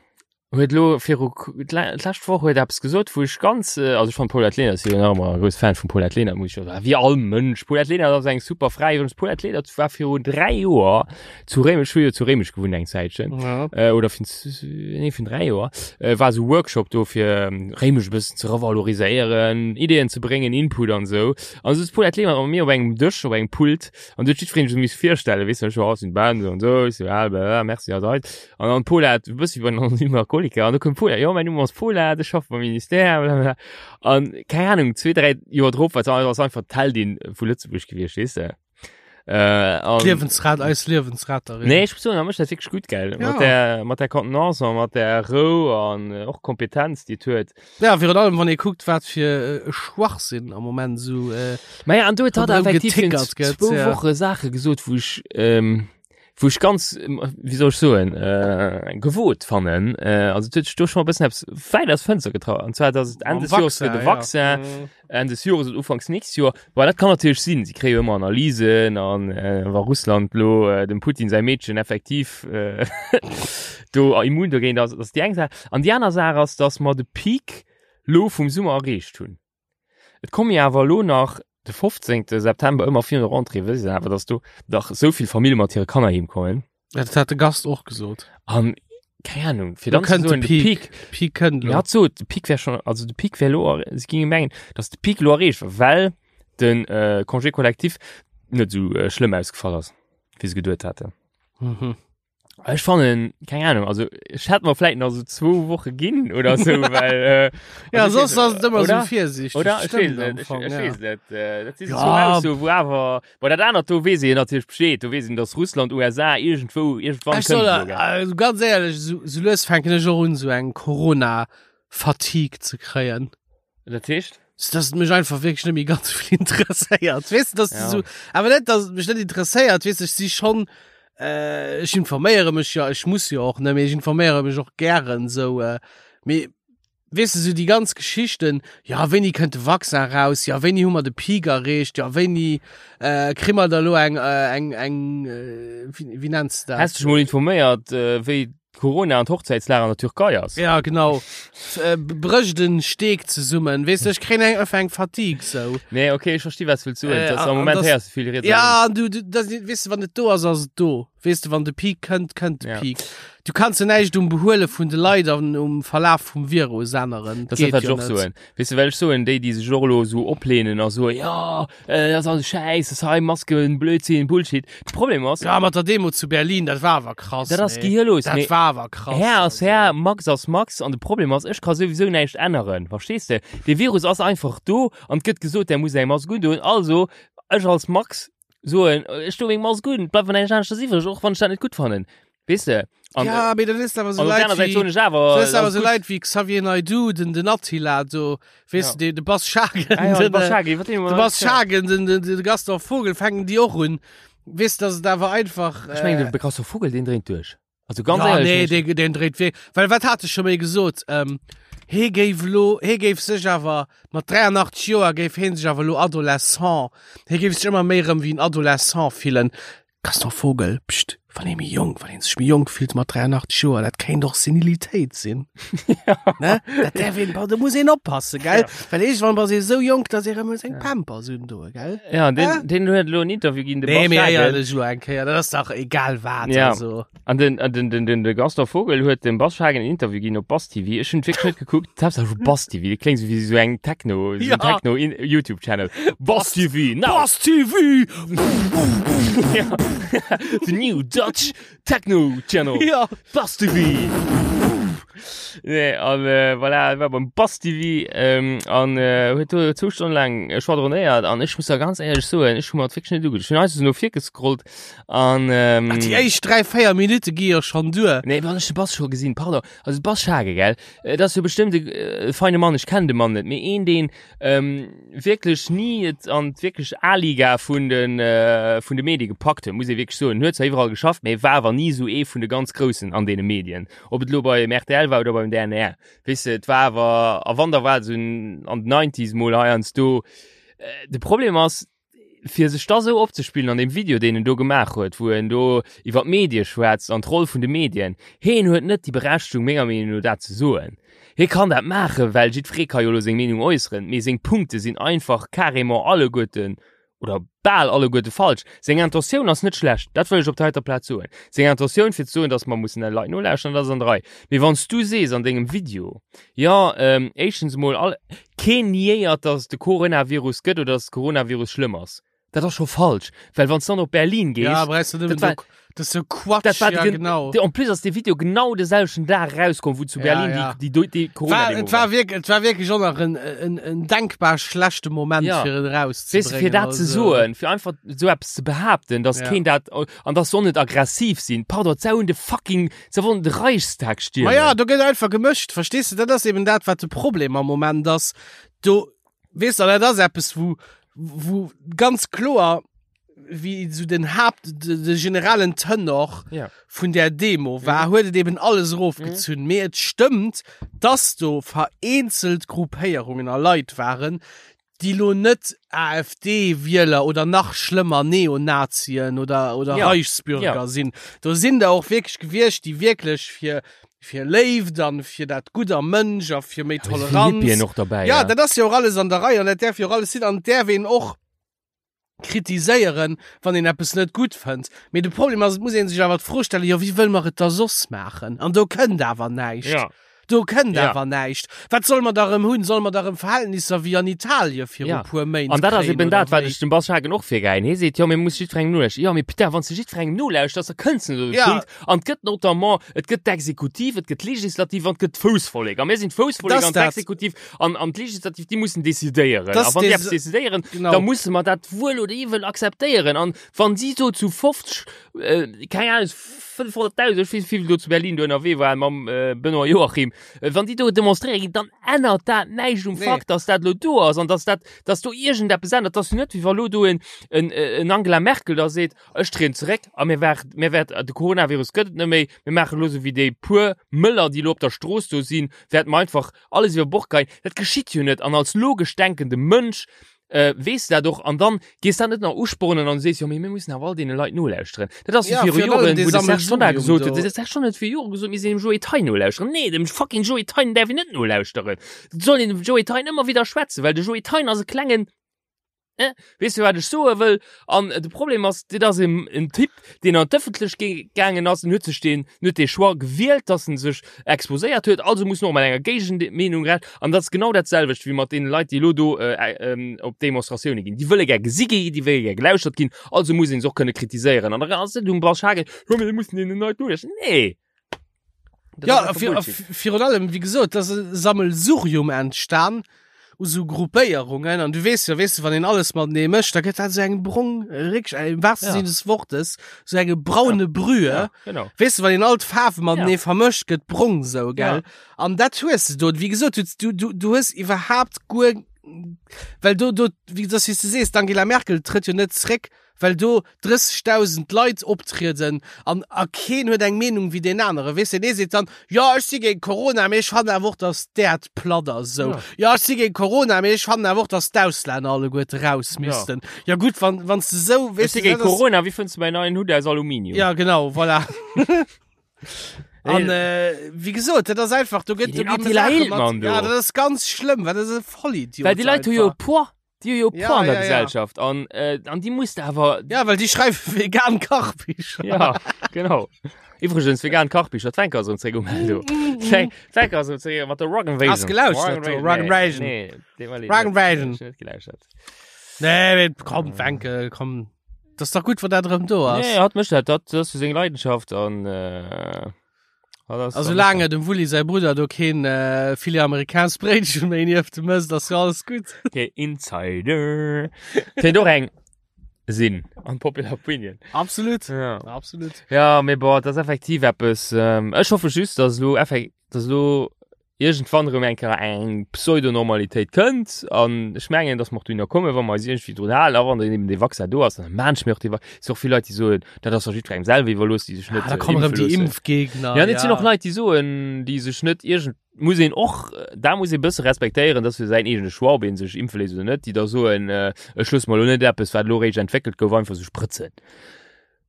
huet lo viru d'lescht Woch huet eppes gesot, wou ech ganz äh, also ech fand Paulette Lenert si jo nach ëmmer e grousse Fan vum Paulette Lenert, muss ich jo soen, wéi all Mënsch. Paulette Lenert ass eng super Fra. Iwwregens Paulette Lenert war viru 3 Joer zu Réimech, ech hu jo zu Réimech gewunnt eng Zäitchen. Ja. Äh, oder vun nee, vun 3 Joer, äh, war sou Workshop do fir ähm, Réimech e bëssen ze revaloriséieren, Ideeën ze bréngen, Input an sou. An sou Paulette Lenert mat mir op engem Dësch, op engem Pult an du huet jiddwereen sech miss virstellen, weess du, ech war sinn Ben, sou an sou, ech sou, ah, bla, merci, a seit. An dann d'Paulette, e bëssi wéi bei den Anonymen Alkoholiker, an du koum d'Paulette, jo, mäin Numm ass Paulette, ech schaffe beim Ministère, bla, bla. An keng Ahnung, zwee, dräi Joer drop war se ass einfach d'Heldin vu Lëtzebuerg gewiescht, weess de. Äh, an, Liewensrat, eis Liewensretterin. Nee, ech muss soen, da mécht dat wierklech gutt, gell? Ja. Mat der, mat der Contenance an mat der Rou an äh, och Kompetenz, déi et huet. Ja, virun allem, wann ee kuckt, wat fir äh, e Schwachsinn am Moment sou äh, Ma ja, an do huet hatt Ronderëm effektiv virun getickert gëtt, zwou ja. Woche Saache gesot, wou ech, ähm, wou ech ganz, ähm, wéi soll ech soen, äh, gewot fannen. Äh, also et huet sech do schon e bëssen eppes wäit aus Fënster getraut. An zwar, dass et Enn mam des Jores fir Vaccin, de Vaccin, ja. Mhm. Enn des Jores oder Ufanks nächst Joer. Bon, dat kann natierlech sinn, si kréie jo ëmmer Analysen an äh, wa Russland lo äh, dem Putin säi Meedchen effektiv äh, do immun dogéint ass, dat ass déi eng Saach. An déi aner Saach ass, datt mer de Peak lo vum Summer erreecht hunn. Et komme jo awer lo nach de 15. September ëmmer virun der Rentrée, wësst Dir awer, datt do dach esou vill Famille mat hire Kanner heem kommen. Ja, dat hat de Gast och gesot. An keng Ahnung, fir Lo dann ze kënnt de soen, de Peak. Peak, Peak kënnt Ja, lo. hat sot, de Peak wär schon, also de Peak wär lo, si ginge mengen, dass de Peak lo erreecht war, well. Den äh, Congé collectif net sou äh, schlëmm ausgefall ass, wéi se geduet haten. Mhm. Ech fannen, keng Ahnung, also ech hätt mer vläit nach so zwou Woche ginn oder so, well äh, Ja, also, soss ass et ëmmer oder? sou virsiichteg. Oder? Ech Stimmt weess am net, ech, Fong, ech ja. weess net. Äh, dat si so Ja. zwou Aussoen, wou awer, bon, dat anert do weess een natierlech Bescheed, do weess een, dass Russland, USA iergendwou, iergendwann Ech soll, kënnt elo, gell? also ganz éierlech, sou, sou lues fänken ech och un, sou eng Corona-Fatigue ze kréien. Dat heescht? So, dass et mech einfach wierklech net méi ganz vill interesséiert. Weess du, dass du Ja. so, awer net, dass et mech net interesséiert, weess du, ech si schon, äh, ech informéiere mech ja, ech muss jo och, ne, mee ech informéiere mech och gären, sou, äh, mee weess du, sou déi ganz Geschichten, ja, wéini kënnt de Vaccin raus, ja, wéini hu mer de Peak erreecht, ja, wéini, äh, kri mer da lo eng, äh, eng, eng, äh, wéi, wéi nenns du dat? Häss dech mol informéiert, äh, wéi Corona an d'Hochzäitslag an der Türkei ass. Ja, genau. Äh, brécht en Steek zesummen. Weess du, ech kréien eng, einfach eng Fatigue sou. Nee, okay, ech versti wat du wëlls soen. Äh, Dass an- am Moment an das- héiers du vill riets a Ja, an du, du das, weess du, wann et do ass, ass et do. Weess du, wann de Peak kënnt, kënnt de Ja. Peak. Du kanns jo näischt um Behuele vun de Leit an um Verlaf vum Virus änneren. Das ist Geet dat, wat jo ech och net. soen. Weess du, well ech soen, déi, déi sech och elo esou oplehnen a soen, jo, äh, dat ass alles Schäiss, das hei Masken, Blödsinn, Bullshit. De Problem ass, Ja, mat der Demo zu Berlin, dat war awer krass. Dat ass nee. gehirlos, Dat mee war awer krass. Här ass also. Här, Max ass Max an de Problem ass, ech ka souwisou näischt änneren, verstees de? De Virus ass einfach do an et gëtt gesot, der muss eng Mask undoen, also ech als Max soen, ech do meng Mask un, et bleift mer näischt aneschters iwwreg, och wann ech dat net gutt fannen, weess de? An, Ja, mee dat is awer sou an op der Leit aner Säit soen wéi ech awer, dat is awer ass sou gutt. Leit wéi Xavier Naidoo, den den Attila do, weess Ja. de, de Bas Schagen, Ah ja, de den, Bas äh, Schagen, iwwer deen hu mer de nach Bas net geschwat. Schagen, den, den, de Gaston Vogel fänken déi och un. Weess de, dass et awer einfach, Ech mengen, äh, de Gaston Vogel, deen dréint duerch. Also ganz ja, éierlech, nee, deen, deen dréit wierk. Well wat hat e scho méi gesot? Ähm, hee géif lo, hee géif sech awer mat 83 Joer géif hee sech awer lo Adolescent, hee géif sech ëmmer méi rëm wéi en Adolescent fillen. Gaston Vogel, Pscht, wann ee méi jonk, wann ee sech méi jonk fillt mat 83 Joer, dat kéint och Senilitéit sinn. Ne? Dat däerf een, do muss een oppassen, gell? Well iergendwann bass ee sou jonk, dass ee rëm muss eng Pampers undoen, gell? Ja, den, Äh? den huet elo en Interview ginn, de Nee, Bas mee Schagen. éierlech elo eng Kéier, dat ass dach egal wat, Ja. also. An den, an den, den, den, de Gaston Vogel huet dem Bas Schagen en Interview ginn op Bas TV. Ech hunn wierklech net gekuckt. D'Haaptsaach vu Bas TV, dat kléngt sou wéi sou eng Techno, sou Ja. en Techno in YouTube Channel. Bas TV, now! Bas TV! Ja. The new Dutch Techno Channel. Ja. Bas TV! Nee, an äh, voilà, war beim Bas TV ähm, an äh, huet do zwou Stonnen laang äh, schwadronéiert an ech muss da ganz éierlech soen, ech hu mer dat wierklech net ugeduecht. Ech hunn einfach sou no vir gescrollt an ähm, Ach, déi éischt 3, 4 Minutte gi jo schonn duer. Nee, wann ech de Bas scho gesinn, pardon, also de Bas Schage, gell, äh, dat ass jo bestëmmt e äh, feine Mann, ech kennen de Mann net, mee een, deen ähm, wierklech ni et an d'wierklech A-Liga vun den, äh, vun de Medie gepackt huet, muss ee wierklech soen. Huet zwar iwwerall geschafft, mee war awer ni esou ee vun de ganz Groussen an deene Medien. Ob et elo beim rtl war oder beim DNR. Weess de, et war awer, a wann da war et esou an den Nineties mol heiansdo. Äh, de Problem ass, fir sech da sou opzespillen an deem Video, deen en do gemaach huet, wou en do iwwer d'Medie schwätzt an d'Roll vun de Medien, heen huet net déi Berechtigung, menger Meenung no, dat ze soen. Hie kann dat maachen, well jiddweree ka jo elo seng Meenung äusseren, mee seng Punkte sinn einfach carrément alleguerten oder bal alleguerte falsch. Seng Intentioun ass net schlecht, dat wëll ech op der heiter Plaz soen. Seng Intentioun, fir ze soen, datt mer mussen de Leit nolauschteren, dat ass an der Rei. Mee wann s du sees an dengem Video, jo, éischtens emol, all, Keen niéiert, dass et de Coronavirus gëtt oder dass de Coronavirus schlëmm ass. Dat ass scho falsch, well wann s dann op Berlin gees, Ja, brauchst du dat nëmmen war, do, das ist so Quatsch, dat war ja, gen, genau. de, en plus ass de Video genau de selwechten Dag erauskomm, wou zu Ja, Berlin ja. déi, déi, déi War, Corona-Demo et war war. wirklich, et war wirklich och nach en, en, en denkbar schlechte Moment, Ja. fir et Weess du, erauszubringen. fir dat ze also. soen, fir einfach esou eppes ze behaapten, dass Ja. keen dat, an dass soll net aggressiv sinn, pardon, d'Sau hunn de fucking, se wollen de Reichstag Ma ja, stiermen. do gëtt einfach gemëscht, verstees du? Dat ass eben dat, wat de Problem am Moment ass. Do, weess du, dat ass eppes, wou, wou ganz kloer, wéi sou den Haapt, de, de generellen Tenor Ja. vun där Demo war, huet et eben alles erofgezunn. Mee et stëmmt, dass do vereenzelt Gruppéierungen a Leit waren, déi lo net AfD-Wieler oder nach schlëmmer Neonazien oder, oder Ja. Reichsbürger Ja. sinn. Do sinn der och wierklech gewiescht, déi wierklech fir, fir Léift an fir dat Gutt am Mënsch a fir méi Da si vill Toleranz. Hippien och derbäi, Ja, ja. dat ass jo och alles an der Rei an dat däerf jo och alles sinn an et däerf een och kritiséieren, wann een eppes net gutt fënnt. Mee de Problem ass, et muss ee sech awer d'Fro stellen, jo wéi wëlle mer et da soss maachen? An do kënnt awer näischt. Ja. Do kënnt Ja. awer näischt. Wat solle mer da rëm hunn? Solle mer da rëm Verhältnisser wéi an Italie viru Ja. puer Méint An dat ass kréien eben oder dat, wat wéi? ech dem Bas Schagen och virgeheien. Hie seet, jo, mir muss jiddwerengem nolauschteren. Jo, mee putain, wann s de jiddwerengem nolauschters, da kënns de net op de Ja. Punkt. An et gëtt notamment, et gëtt d'Exekutiv, et gëtt d'Legislativ an et gëtt d'Foussvollek. A mir sinn d'Foussvollek Das an dat. d'Exekutiv an, an d'Legislativ, déi mussen decidéieren. Das A wann déi des- eppes decidéieren, Genau. da musse mer dat wuel oder iwwel akzeptéieren. An wann si so zu 50, äh, keng Ahnung, 500.000, ech weess net, wéi vill do zu Berlin do ënnerwee waren mam äh, Benoît Joachim, äh, wann déi do demonstréiere ginn, dann ännert dat näischt um Nee. Fakt, dass dat lo do ass an dass dat, dass do iergendeppes ännert. Dat ass jo net, wéi wa lo do en, en, en Angela Merkel da seet, ech trieden zeréck a mir wäert, mir wäert, de Coronavirus gëtt et net méi, mir maachen elo sou wéi déi puer Mëller, déi lo op der Strooss do sinn, wäerte mer einfach alles iwwer Bord geien. Dat geschitt jo net an als logesch denkende Mënsch äh, weess dat och an dann gees dat net nach uspornen an sees jo mee mir mussen awer all deene Leit nolauschteren. Dat ass Ja, wéi viru virun allem Joren, dee wou de Serge Tonnar Sammelsurium gesot huet, do. de Serge Tonnar huet viru Jore gesot, mir sinn dem Joe Thein nolauschteren. Nee, dem fucking Joe Thein däerf een net nolauschteren. Et soll een dem Joe Thein ëmmer widder schwätzen, well de Joe Thein ass e klengen Eh, weess du wat ech soe wëll? An de Problem ass, dit ass en, en Typ, deen an d'Ëffentlechkeet gaangen ass, en huet sech deen, en huet dee Choix gewielt, dass en sech exposéiert huet, also muss en och mat enger Géigenmeenung rechnen. An dat ass genau dat selwecht wéi mat deene Leit, déi elo do op Demonstratioune ginn. Déi wëlle gär gesi ginn, déi wëlle gär gelauschtert ginn, also muss een se och kënne kritiséieren. An da ass et um Bas Hagel, jo mee mir mussen deenen Leit nolauschteren. Nee! Dat Ja, ass einfach vir, Bullshit. virun allem, wéi gesot, dass e Sammelsurium entstan u sou Gruppéierungen an du weess jo, weess du, wann een alles matenee mécht, da gëtt dat sou eng brong, réckeg, im wahrsten Ja. Sinne des Wortes, sou enge braune Brühe. Ja, genau. Weess du, wann een all d'Faarwe matenee Ja. vermëscht, gëtt brong sou, gell? Ja. An dat hues de do. Wéi gesot, du, du, du, du hues iwwerhaapt guer, well do, do, wéi dass, wéi s de sees, d'Angela Merkel trëtt jo net zréck, well do 30.000 Leit optrieden an a keen huet eng Meenung wéi deen anere. Weess de, deen ee seet dann, jo ech si géint Corona, mee ech fannen awer och, datt d'Äerd platt ass esou. Jo ech si géint Corona, mee ech fannen awer och, datt d'Auslänner alleguerte raus missten. Jo gutt, wann wann s de esou, Ech weess si de, géint dat ass. Corona, wéi fënns de mäin neien Hutt aus Aluminium? Ja genau, voilà. An äh, wéi gesot, dat ass einfach, do gëtt Den do gi Attila Saache mat- Hildmann do. Ja, dat ass ganz schlëmm, well dat ass e Vollidiot. Well déi Leit hu jo e einfach. Poids. Déi hu jo Ja, Poids an der ja, ja. Gesellschaft an äh, an déi muss de awer Ja, well déi schreiwe vegan Kachbicher. Ja, genau. Iwwregens vegan Kachbicher, d'Fenker ass erëm zréck um Eldo. D'Fenker ass erëm zréck mat der Rock Invasion. Hast gelauschtert, do, Rock Invasion. Nee, nee, nee, Rock Invasion. Ech net gelauschtert. Nee, mee komm, Fenke, komm. Das ist doch gut, wann dat erëm do ass. Nee, hat mécht dat, dat ass jo seng Leidenschaft an äh, A soulaang dem Wulli säi Brudder do keen äh, Filet americains Bréitchen méi nieft em ësst, ass jo alles gutt. Der Insider. Kéint och eng sinn an Popular Opinion. Absolut. Ja. Absolut. Ja, mee boah, dat ass effektiv eppes. Ähm, ech hoffe just, dass elo effek dass elo iergendwann erëm eng Kéier eng Pseudonormalitéit kënnt an ech mengen, dass mer och dohinner kommen, wa mer eis iergendwéi drun halen a wann dann eben dee Vaccin do ass, dann maan ech mir och dee Vaccin. Et si och vill Leit, déi soen, dat ass doch jiddwerengem selwer iwwerlooss, déi sech Ah, net da kommen erëm impfe déi loossen. Impfgegner. Ja, et sinn och Leit, déi soen, déi sech net iergend, muss een och, da muss ee bësse respektéieren, dass fir säin eegene Choix, ob ee sech impfe léisst oder net, déi da soen, ech loosse mer elo net eppes, wat elo réischt entwéckelt gouf, einfach sou sprëtzen.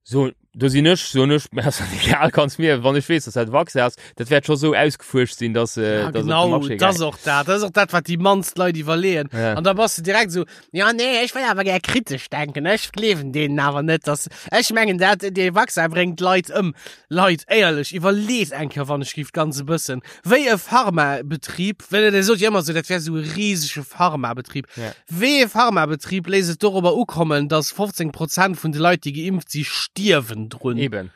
So, do sinn ech, soen ech, mir ass dat egal, kanns mir, wann ech weess, dass dat e Vaccin ass, dat wäert scho sou ausgefuerscht sinn, dass, äh, Ja, dass et op de genau, Marché dat ass gaangen. och dat. Dat ass och dat, wat déi mannst Leit iwwerleeën. Ja. An da bass de direkt esou, ja, nee, ech wëll awer gär kritesch denken, ech gleewen deenen awer net, dass, ech mengen dat, dee Vaccin bréngt d'Leit ëm. Leit, éierlech, iwwerleet eng Kéier, wann ech géif, ganz e bëssen, wéi e Pharmabetrib, well Der sot jo ëmmer esou, dat wär esou e risege Pharmabetrib, Ja. Wéi ee Pharmabetrib léisst et dorobber ukommen, dass 15 Prozent vun de Leit, déi geimpft si, stierwen drun? Eben.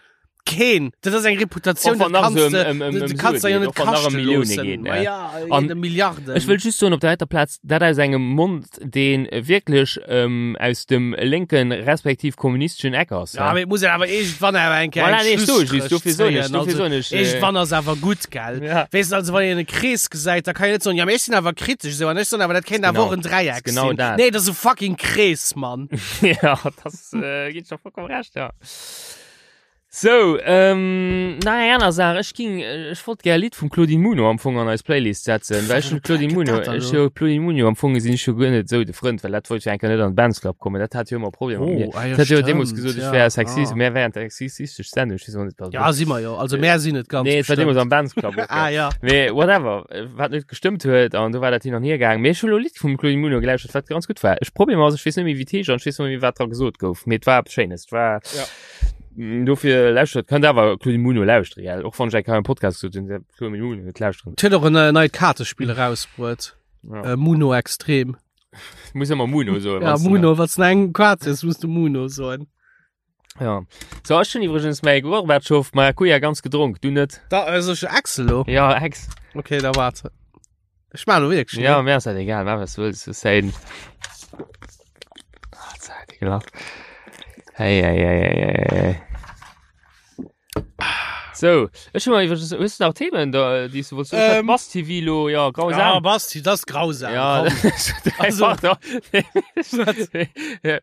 Keen! Dat ass eng Reputatioun, Och wann dat nach kanns esou de, ëm- ëm- ëm dat kanns de Sue jo geet, net och wann nach ëm kaschte Millioune loossen. geet, Ma ne? ja, An ëm Milliarden. Ech wëll just soen op der heiter Plaz, dat aus engem Mond, dee wierklech ähm, aus dem lénken respektiv kommunisteschen Eck ass. Ja, ne? mee et muss een awer iergendwann awer eng Kéier Voilà, eng nee, ech soe just, Schlusstréch dofir soen ech, zéien. dofir Also, soen ech, äh, iergendwann ass awer gutt, gell? Ja. Weess de, also wann een e Krees gesäit, da kann een net soen, ja, mee ech sinn awer kritesch esou an ech soen awer, dat kéint awer Genau. och en Dräieck Genau sinn. dat. Nee, dat ass e fucking Krees, Mann. ja, das äh, ginn ech der vollkommen recht, ja. Sou, ähm, nach eng aner Saach, ech ging, ech wollt gär e Lidd vum Claudine Muno am Fong an eis Playlist setzen, well ech hunn Claudine Muno, ech jo Claudine Muno am Fong sinn ech jo guer net esou de Frënd, well dat wollt jo eng Kéier net an den Bands Club kommen, dat hat jo ëmmer Problemer mat mir. Oh, ah jo, Dat hat jo deemools stimmt, gesot, ech ja, wär sexist, ah. mär wären sexistesch Sendung, ech weess och net, wat. Ja, si mer jo, also mär sinn et ganz Nee, et war deemools bestimmt. am Bands Club och, Ah ja. Mee whatever, wat net gestëmmt huet an do war dat hin an hier gaang. Mee ech hunn elo e Lidd vum Claudine Muno gelauschtert, wat ganz gutt war. Ech Problem ass, ech weess net méi wéi et heescht an ech weess net méi wat dra gesot gouf, mee et war eppes Schéines, et war Ja. Dofir lauschtert, kënnt awer Claudine Muno lauschtere, gell? Och wann ech eng Kéier am Podcast gesot hunn, Claudine Muno net lauschteren. Huet och en äh, neit Kaartespill erausbruet. Ja. Äh, Muno Extrem. Muss ëmmer Muno soen. Ja, wanns du Muno, wat eng Kaart ist, musst du Muno soen. Ja. So, ech hunn iwwregens mäi Gorbatschow Maracuja ganz gedronk, du net? Da, also ich Axel lo. Ja, Ex. Okay, da warte. Ich mach lo wirklich. Ja, mir ass dat egal, mach was du wëlls. Du sein. Ah, Zeit, ekelhaft. Hey, hey, hey, hey, hey, hey. So, ech hunn iwwregens, hues du nach Themen, da, déi du wolltest? Ähm, Bass TV lo, ja, grausam. Ja, Basti, das ist grausam. Ja, komm. also, ja, ja.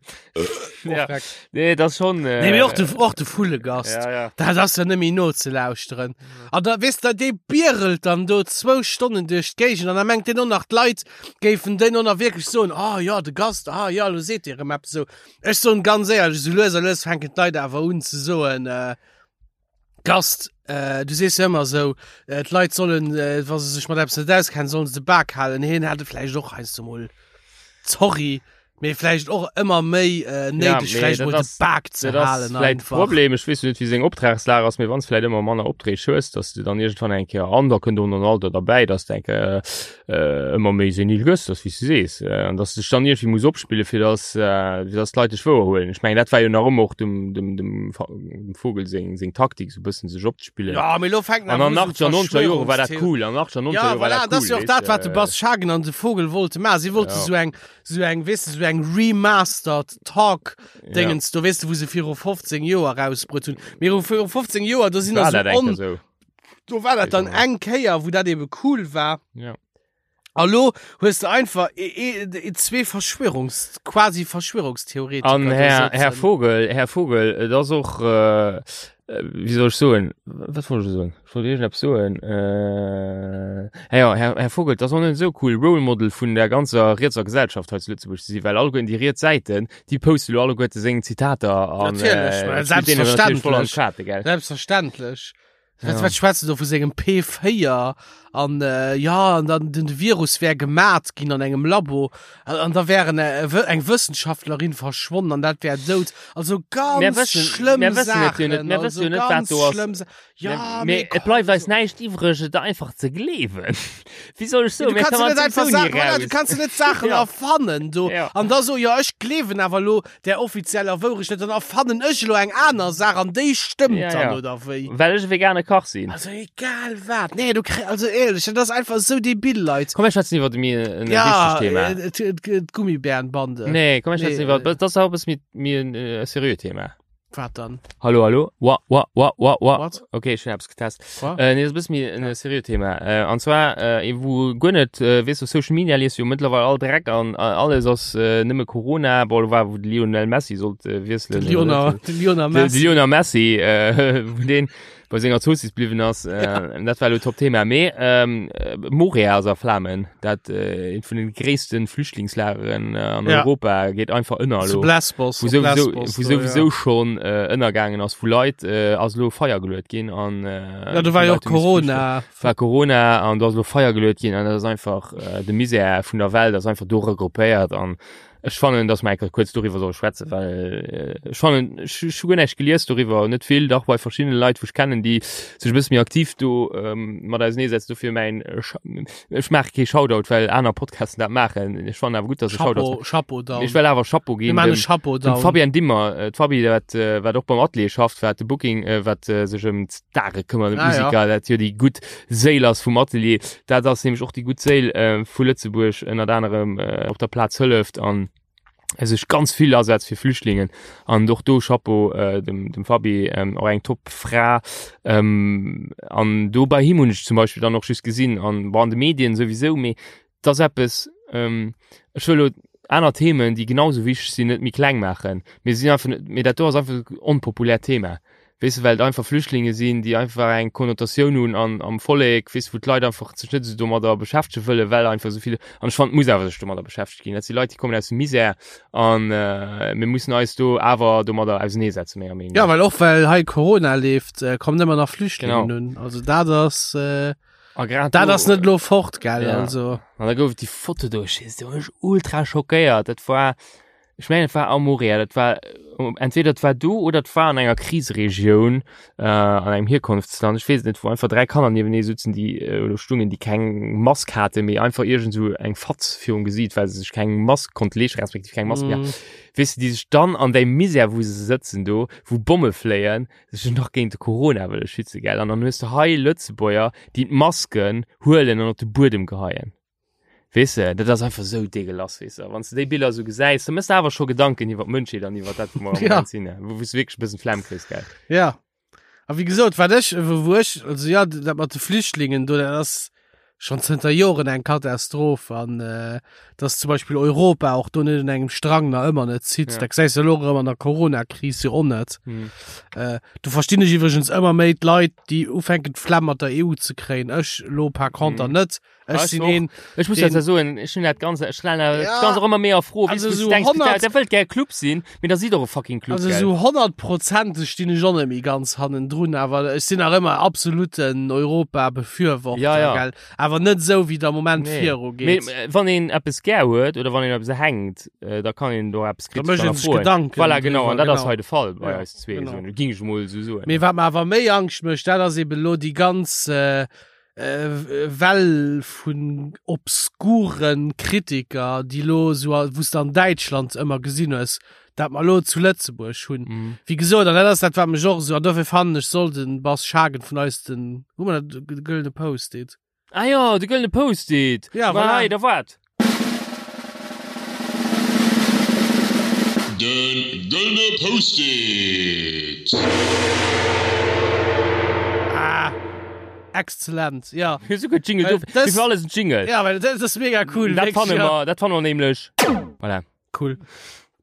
Perfekt. Nee, das schon. Äh, Nee, mee och de, och de Vullegast. Ja, ja. Dat ass ja nëmme no ze lauschteren. An da weess de, dee bierelt dann do zwou Stonnen duerch d'Géigend an da mengt deen och nach, d'Leit géifen deen och nach wierklech soen, ah ja, de Gast, ah ja, lo seet dee rëm eppes esou. Ech soen ganz éierlech, esou lues a lues fänken d'Leit awer un ze soen, äh, Gast, äh, du sees jo ëmmer esou, äh, d'Leit sollen, äh, wa se sech mat eppes net auskennen, sollen se de Bak halen. Hien hat et vläicht och heiansdo mol, sorry, mee vläicht och ëmmer méi äh, néideg, mee vläicht dat mol de ass- Bak ze Dat ass halen vläit einfach. Problem. Ech weess jo net, wéi seng Optragslag ass, mee wann s vläit ëmmer manner Opträg hues, dass du dann iergendwann eng Kéier, an da kënnt och nach en Alter derbäi, dass de eng Kéier äh, ëmmer méi senil gëss, dass wéi s du sees, äh, an dass du dech dann iergendwéi muss opspille fir dass, äh, fir dass d'Leit dech wouer huelen. Ech mengen, dat war jo nach ëmmer och dem, dem, dem, dem Vogel seng, seng Taktik, sou bëssen sech opzespillen. Ja, mee lo fänken An awer an u sou 80er, 90er Jore war dat Verschwörungstheorien. cool. An 80er, 90er Ja, Jore war voilà, dat dat ass cool, jo och dat, weess wat de de. Bas Schagen an de Vogel wollte maachen. Si wollte Ja. sou eng, sou eng, weess de, sou eng remastered Talk Dingens, do weess de, wou se viru 15 Joer rausbruet hunn. Mee viru 15 Joer, do sinn War der dat sou eng Kéier on, sou. do war dat dann eng Kéier, wou dat ebe cool war. Ja. A lo hues de einfach e, e, e, zwee Verschwörungs, quasi Verschwörungstheoretiker. An do Här, Här sëtzen. Vogel, Här Vogel, et ass och, äh, wéi soll ech soen, wat wollt ech soen? Ech wollt iergendeppes soen. Äh, ja, ja, Här, Här Vogel, et ass och net esou cool, Role Model vun der ganzer rietser Gesellschaft hei zu Lëtzebuerg ze sinn, well alleguerten déi riets Säiten, déi poste lo alleguerte seng Zitater an, Natierlech, äh, well spillt deenen natierlech voll an selbstverständlech. d'Kaarte, gell? Selbstverständlech. Wat, Ja. wat schwätzt du do vu sengem P4 an äh, ja an dann den Virus wär gemat ginn an engem Labo an, an da wären äh, wë- eng Wëssenschaftlerin verschwonnen an dat wär dout. Also ganz Mir wëssen- schlëmm mir wëssen et jo net, Saachen, mir wëssen also jo net, wat ganz do ass. schlëmm Sa ja, Mee mee et bleift eis komm, näischt iwwreg, et einfach ze gleewen. Wéi soll ech soen, Du mir kannst kommen net einfach sowieso Sachen, nie voilà, du raus. kannst net Sachen Ja. erfannen do. Ja. An da so ja ech gleewen awer lo der offizieller Wourecht net, dann erfannen ech elo eng aner Saach an déi stëmmt Ja, dann ja. oder wéi. Well ech e vegane Kach sinn. Also egal wat. Nee, du kri also éierlech, dat ass einfach esou debil, Leit. Komm, mir schwätzen iwwer méi en Ja, wichtegt Thema. äh, d'Gummibärenbande. Nee, komm, mir schwätzen Nee, iwwer, äh, dat ass auch e bësse méi, méi en äh, seriöt Thema. Wat dann? Hallo, hallo. Wa, wa, wa, wa, wa. What? Okay, ech hunn eppes getest. What? Äh, nee, das ist mir ein seriös Thema. Äh, und zwar, äh, wo gar nicht, äh, weißt du, Social Media liest jo mittlerweile all Dreck an äh, alles ass äh, nëmme Corona, boah, war, wo de Lionel Messi sollt äh, wiesselen. De Lionel, de Lionel De, de Messi. Lionel Messi, äh, wo den bei senger Zossis bliwwen ass, äh, dat war lo Top-Thema. Mee ähm, äh, Moria ass a Flamen, dat äh, eent vun den gréissten Flüchtlingslageren äh, an Ja. Europa geet einfach ënner Zu lo. Lesbos. Wou op souwisou, Lesbos wou do, souwisou ja. schon äh, ënnergaangen ass, wou Leit äh, ass lo Feier geluet ginn an äh, Ja, do war wou jo och Leit hu misse flüchten. Corona. War Corona an do ass lo Feier geluet ginn an dat ass einfach äh, de Misär vun der Welt ass einfach do regroupéiert an Ech fannen, dass mer eng Kéier kuerz doriwwer solle schwätzen, well ech fannen, ech hu guer näischt gelies doriwwer, net vill, dach bei verschiddene Leit, wou ech kennen, déi sech e bësse méi aktiv do mat auserneesetzen. Dofir mäin, ech maache kee Shoutout, well aner Podcasten dat maachen. Ech fannen awer gutt, dass e Shoutout Chapeau, Chapeau down. Ech well awer Chapeau Mir ginn maachen e dem, Chapeau dem down. Fabienne Dimmer, d'Fabi, wat, wat och beim Atelier schafft, wat de Booking, wat sech ëm d'Stare këmmert, ëm Ah, ja. d'Musiker, dat jo déi gutt Séil ass vum Atelier. Dat ass nämlech och déi gutt Séil vu Lëtzebuerg, ënnert anerem op der Plaz hëlleft an sech ganz vill asetzt fir Flüchtlingen. An och do Chapeau dem, dem Fabi, och eng top Fra. An do bei him hunn ech zum Beispill dann och just gesinn, an bon an de Medien souwisou, mee et ass eppes, ech wëll elo aner Themen, déi genau sou wichteg sinn, net méi kleng maachen. Mee sinn einfach net, mee dat do ass einfach e onpopuläert Thema. Weess de, well et einfach Flüchtlinge sinn, déi einfach eng Konnotatioun hunn an am Vollek, weess de, wou d'Leit einfach sech net esou domadder beschäftege wëllen, well einfach esou vill, an ech fannen, et muss awer sech domadder beschäftegt ginn. Dat si Leit, déi kommen aus dem Misär an mir mussen eis do awer domadder auseneesetzen, menger Meenung Ja, no. well och well hei Corona leeft, kommen ëmmer nach Flüchtlingen Genau. un. Also dat ass, A grad dat do, ass net elo fort, gell, ja. also. An da gouf et déi Foto do, ech weess, do war ech ultra schockéiert. Dat war. Ech mengen et war am Moria, dat war entweder et war do oder et war an enger Kriseregioun äh, an engem Hierkonftsland, ech weess et net, wou einfach 3 Kanner niewenee sutzen, déi äh, oder stungen, déi keng Mask hate mee einfach iergend sou eng Fatz virum Gesiit, well se sech keng Mask konnte leeschten, respektiv keng Mask méi haten. Mm. Weess de, déi sech dann an där Misär, wou se sëtzen do, wou Bomme fléien, sech nach géint de Corona wëlle schützen, gell? An dann hues de hei Lëtzebuerger, déi d'Masken huelen an op de Buedem geheien. Weess de, dat ass einfach esou dégueulasse, weess de. Wann s de déi Biller esou gesäis, da méchs de awer scho Gedanken iwwer d'Mënschheet an iwwer dat, wou mer am Ja. Moment sinn, wou s du wierklech e bëssen d'Flemm kriss, gell. Ja. A wéi gesot, wat ech, wou wou ech, also ja, dat mat de Flüchtlingen do, dat ass schonn zënter Joren eng Katastroph an äh, dass zum Beispill Europa och do net un engem Strang nach ëmmer net zitt. Ja. Dat gesäis de elo erëm an der Corona-Kris jo och net. Hm. Äh, do verstinn ech iwwregens ëmmer méi d'Leit, déi ufänken d'Flemm mat der EU ze kréien. Ech elo par conter Mhm. net. Ech Ah, sinn och. een, Ech muss den- dat soen, ech hunn dat ganze, ech stellen dat Ja. ganz och ëmmer méi a Fro. Also Weess du, so du denkst, 100 der, der wëllt gär Club sinn, mee da sidd och e fucking Club, Also gell? so 100%eg stinn ech och net méi ganz hannendrun, awer ech sinn nach ëmmer absoluten Europa-Befürworter, Ja, ja. gell? Awer net esou, wéi et am Moment Nee. viru Mee, geet. äh, wann een eppes gär huet oder wann een eppes hänkt, äh, da kann een do eppes Da kritesch mécht een sech hannerfroen. Gedanken Voilà, genau, an driwwer, dat ass genau. hei de Fall bei Ja, eis zwee, genau. so, ging ech mol esou soen. Mee wat mer awer méi Angscht mécht, dat ass eben elo déi ganz äh, äh, Well vun obskuren Kritiker, déi lo sou, wou s de an Däitschland ëmmer gesinn hues, dat mer lo zu Lëtzebuerg hunn. Mm. Wéi gesot, an dat ass dat, wat mech och esou, an dofir fannen ech, soll de Bas Schagen vun eis den, hu mer dat, de gëllene Post-it? Ah jo, de gëllene Post-it! Ja, Ma voilà. hei, da waart! De gëllene Post-it! Ah, exzellent, ja. Esou gutt Jingle, Well do, das- fir alles en Jingle. Ja, well dat ass mega cool. Dat wirklich, fanne ja. mer, dat fanne mer nämlech. Voilà. Cool.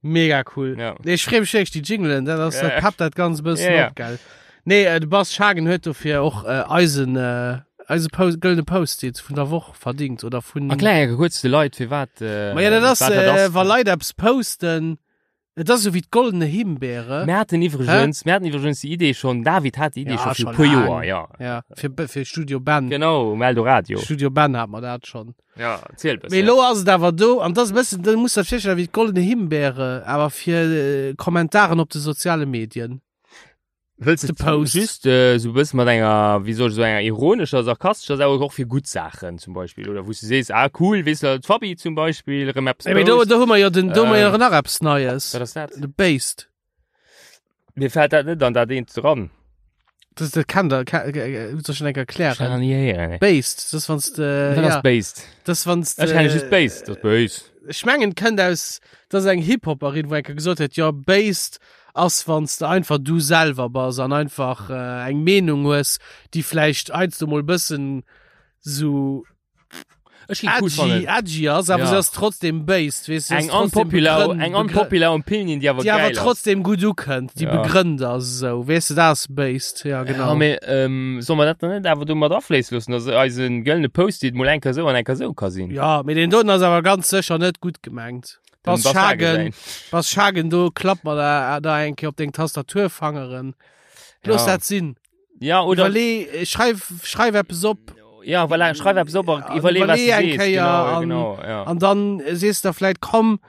Mega cool. Ja. Nee, ech freeë mech wierklech, déi Jinglen, dat ass, Ja, dat peppt dat ganz bëssen Ja, ja. op, gell. Nee, äh, de Bas Schagen huet dofir och äh, eisen, äh, eise Post, gëllene Post-it vun der Woch verdingt oder vun. Erklär enke kuerz de Leit, firwat, äh, Ma ja, dat ass, wat dat äh, ass. wa Leit eppes posten, et ass esou wéi d'goldene Himbeere. Mir haten iwwregens, mir haten iwwregens déi Idee schonn, David hat déi Idee Ja, scho fir schon e puer laang. Joer, ja. Ja, fir, fir Studio Ben. Genau, um Eldoradio. Studio Ben hat mer dat schonn. Ja, erziel e bëssen. Mee elo ass et awer do, an dat ass e bëssen, da muss dat virstellen wéi d'goldene Himbeere, awer fir äh, Kommentaren op de soziale Medien. Wëlls de de Post. Just äh, so bëssen mat enger, wéi soll ech soen, enger ironescher, sarkastescher Saach, och fir gutt Saachen zum Beispill, oder wou s du sees, ah cool, weess de, d'Fabi zum Beispill erëm eppes Mee do, post. do hu mer jo den, do hu mer jo Ähm, nach eppes Neies. Wat ass dat? De Based. Mir fält dat net an dat eent dran. Das, das kann der, kann, äh, soll ich schon enker Ech kann erklären. nie héieren, ey. Based, das wann's de, Wat ja, ass based? das wann's de, Ech kenne just based, das based. Ech mengen kënnt aus, das ass eng Hip-Hopperin, wou enker gesot huet, jo, based ass wanns de einfach du selwer bass an einfach äh, eng Meenung hues, déi vläicht heiansdo mol bëssen sou Ech gi cool edgy, fannen. edgy ass, awer Ja. se ass trotzdem based, weess du, Eng unpopular, eng unpopular Opinion, déi awer déi awer geil ass. trotzdem gutt ukënnt, déi Ja. begrënnt ass esou, weess du, dat ass based, ja genau. Ja, mee ähm, soll mer dat dann net awer do mat afléisse loossen, dass eisen gëllene Post-it mol eng Kéier sou an eng Kéier sou ka sinn? Ja, mee deen doten ass awer ganz sécher net gutt gemengt. Den Bass Bass Schagen, Schagen. Bass Schagen, do klapp mer da, da eng Kéier op deng Tastaturfangeren. Looss Ja. dat sinn. Ja, oder Iwwerlee, äh, schreif, schreif eppes op ja, voilà, schreif eppes op a Ja, iwwerlee, was du iwwerlee eng sees. Kéier Genau, an- genau, ja. an dann äh, sees du da vläit, komm,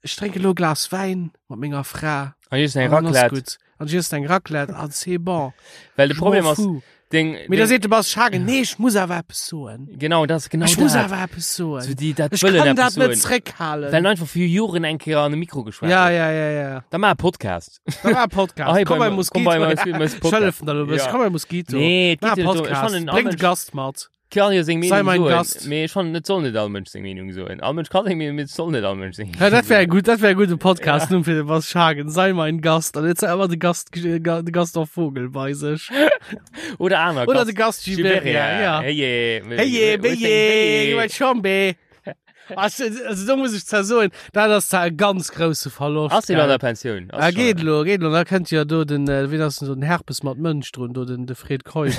ech drénke lo e Glas Wäin mat menger Fra. An just eng An dann ass Raclette. gutt. An just eng Raclette, an c'est bon. Well de Je Problem m'en ass, fous. deng, Mee da deng, seet de Bas Schagen, nee, ech muss awer eppes soen. genau, dat ass genau Ech muss dat. awer eppes soen. So déi dat Ech wëllen kann eppes dat net soen. zréckhalen. Well einfach fir Joren eng Kéier an de Mikro geschwat Ja, huet. ja, ja, ja. Da maach e Podcast. Da war e Podcast. Ah, hey, komm bei bei komm Mosquito. bei Mos- Podcast. Ech hëllefen der lo e bëssen. Ja. Komm bei Mosquito. Nee, et Mach geet e jo net drum. Ech Podcast. fannen, all Bréng de Mënsch Gast mat. kann jo seng Sei Meenung mein soen. Gast. Mee ech fannen, et soll net all Mënsch seng Meenung soen. All Mënsch kann seng Meenung, mee et soll net all Mënsch seng Ja, dat wär Meenung soen. gut, dat wär gute Podcast Numm fir de Bas Schagen. Sei mein Gast. An jetzt ëmmer de Gast, de Gaston Vogel bei sech. Oder aner Oder de Gast Giberia, ja. Hey, je, Hey, hey, hey, Chambe. Also, also do muss ech zwar soen, dat ass zwar e ganz grousse Verloscht. Ass deen an gell? der Pensioun? Ass Ah, schon. geet lo, geet lo. Da kënnt jo do den, äh, wien ass denn so den Herpes mat Mënsch drun, do den, de Fred Keup.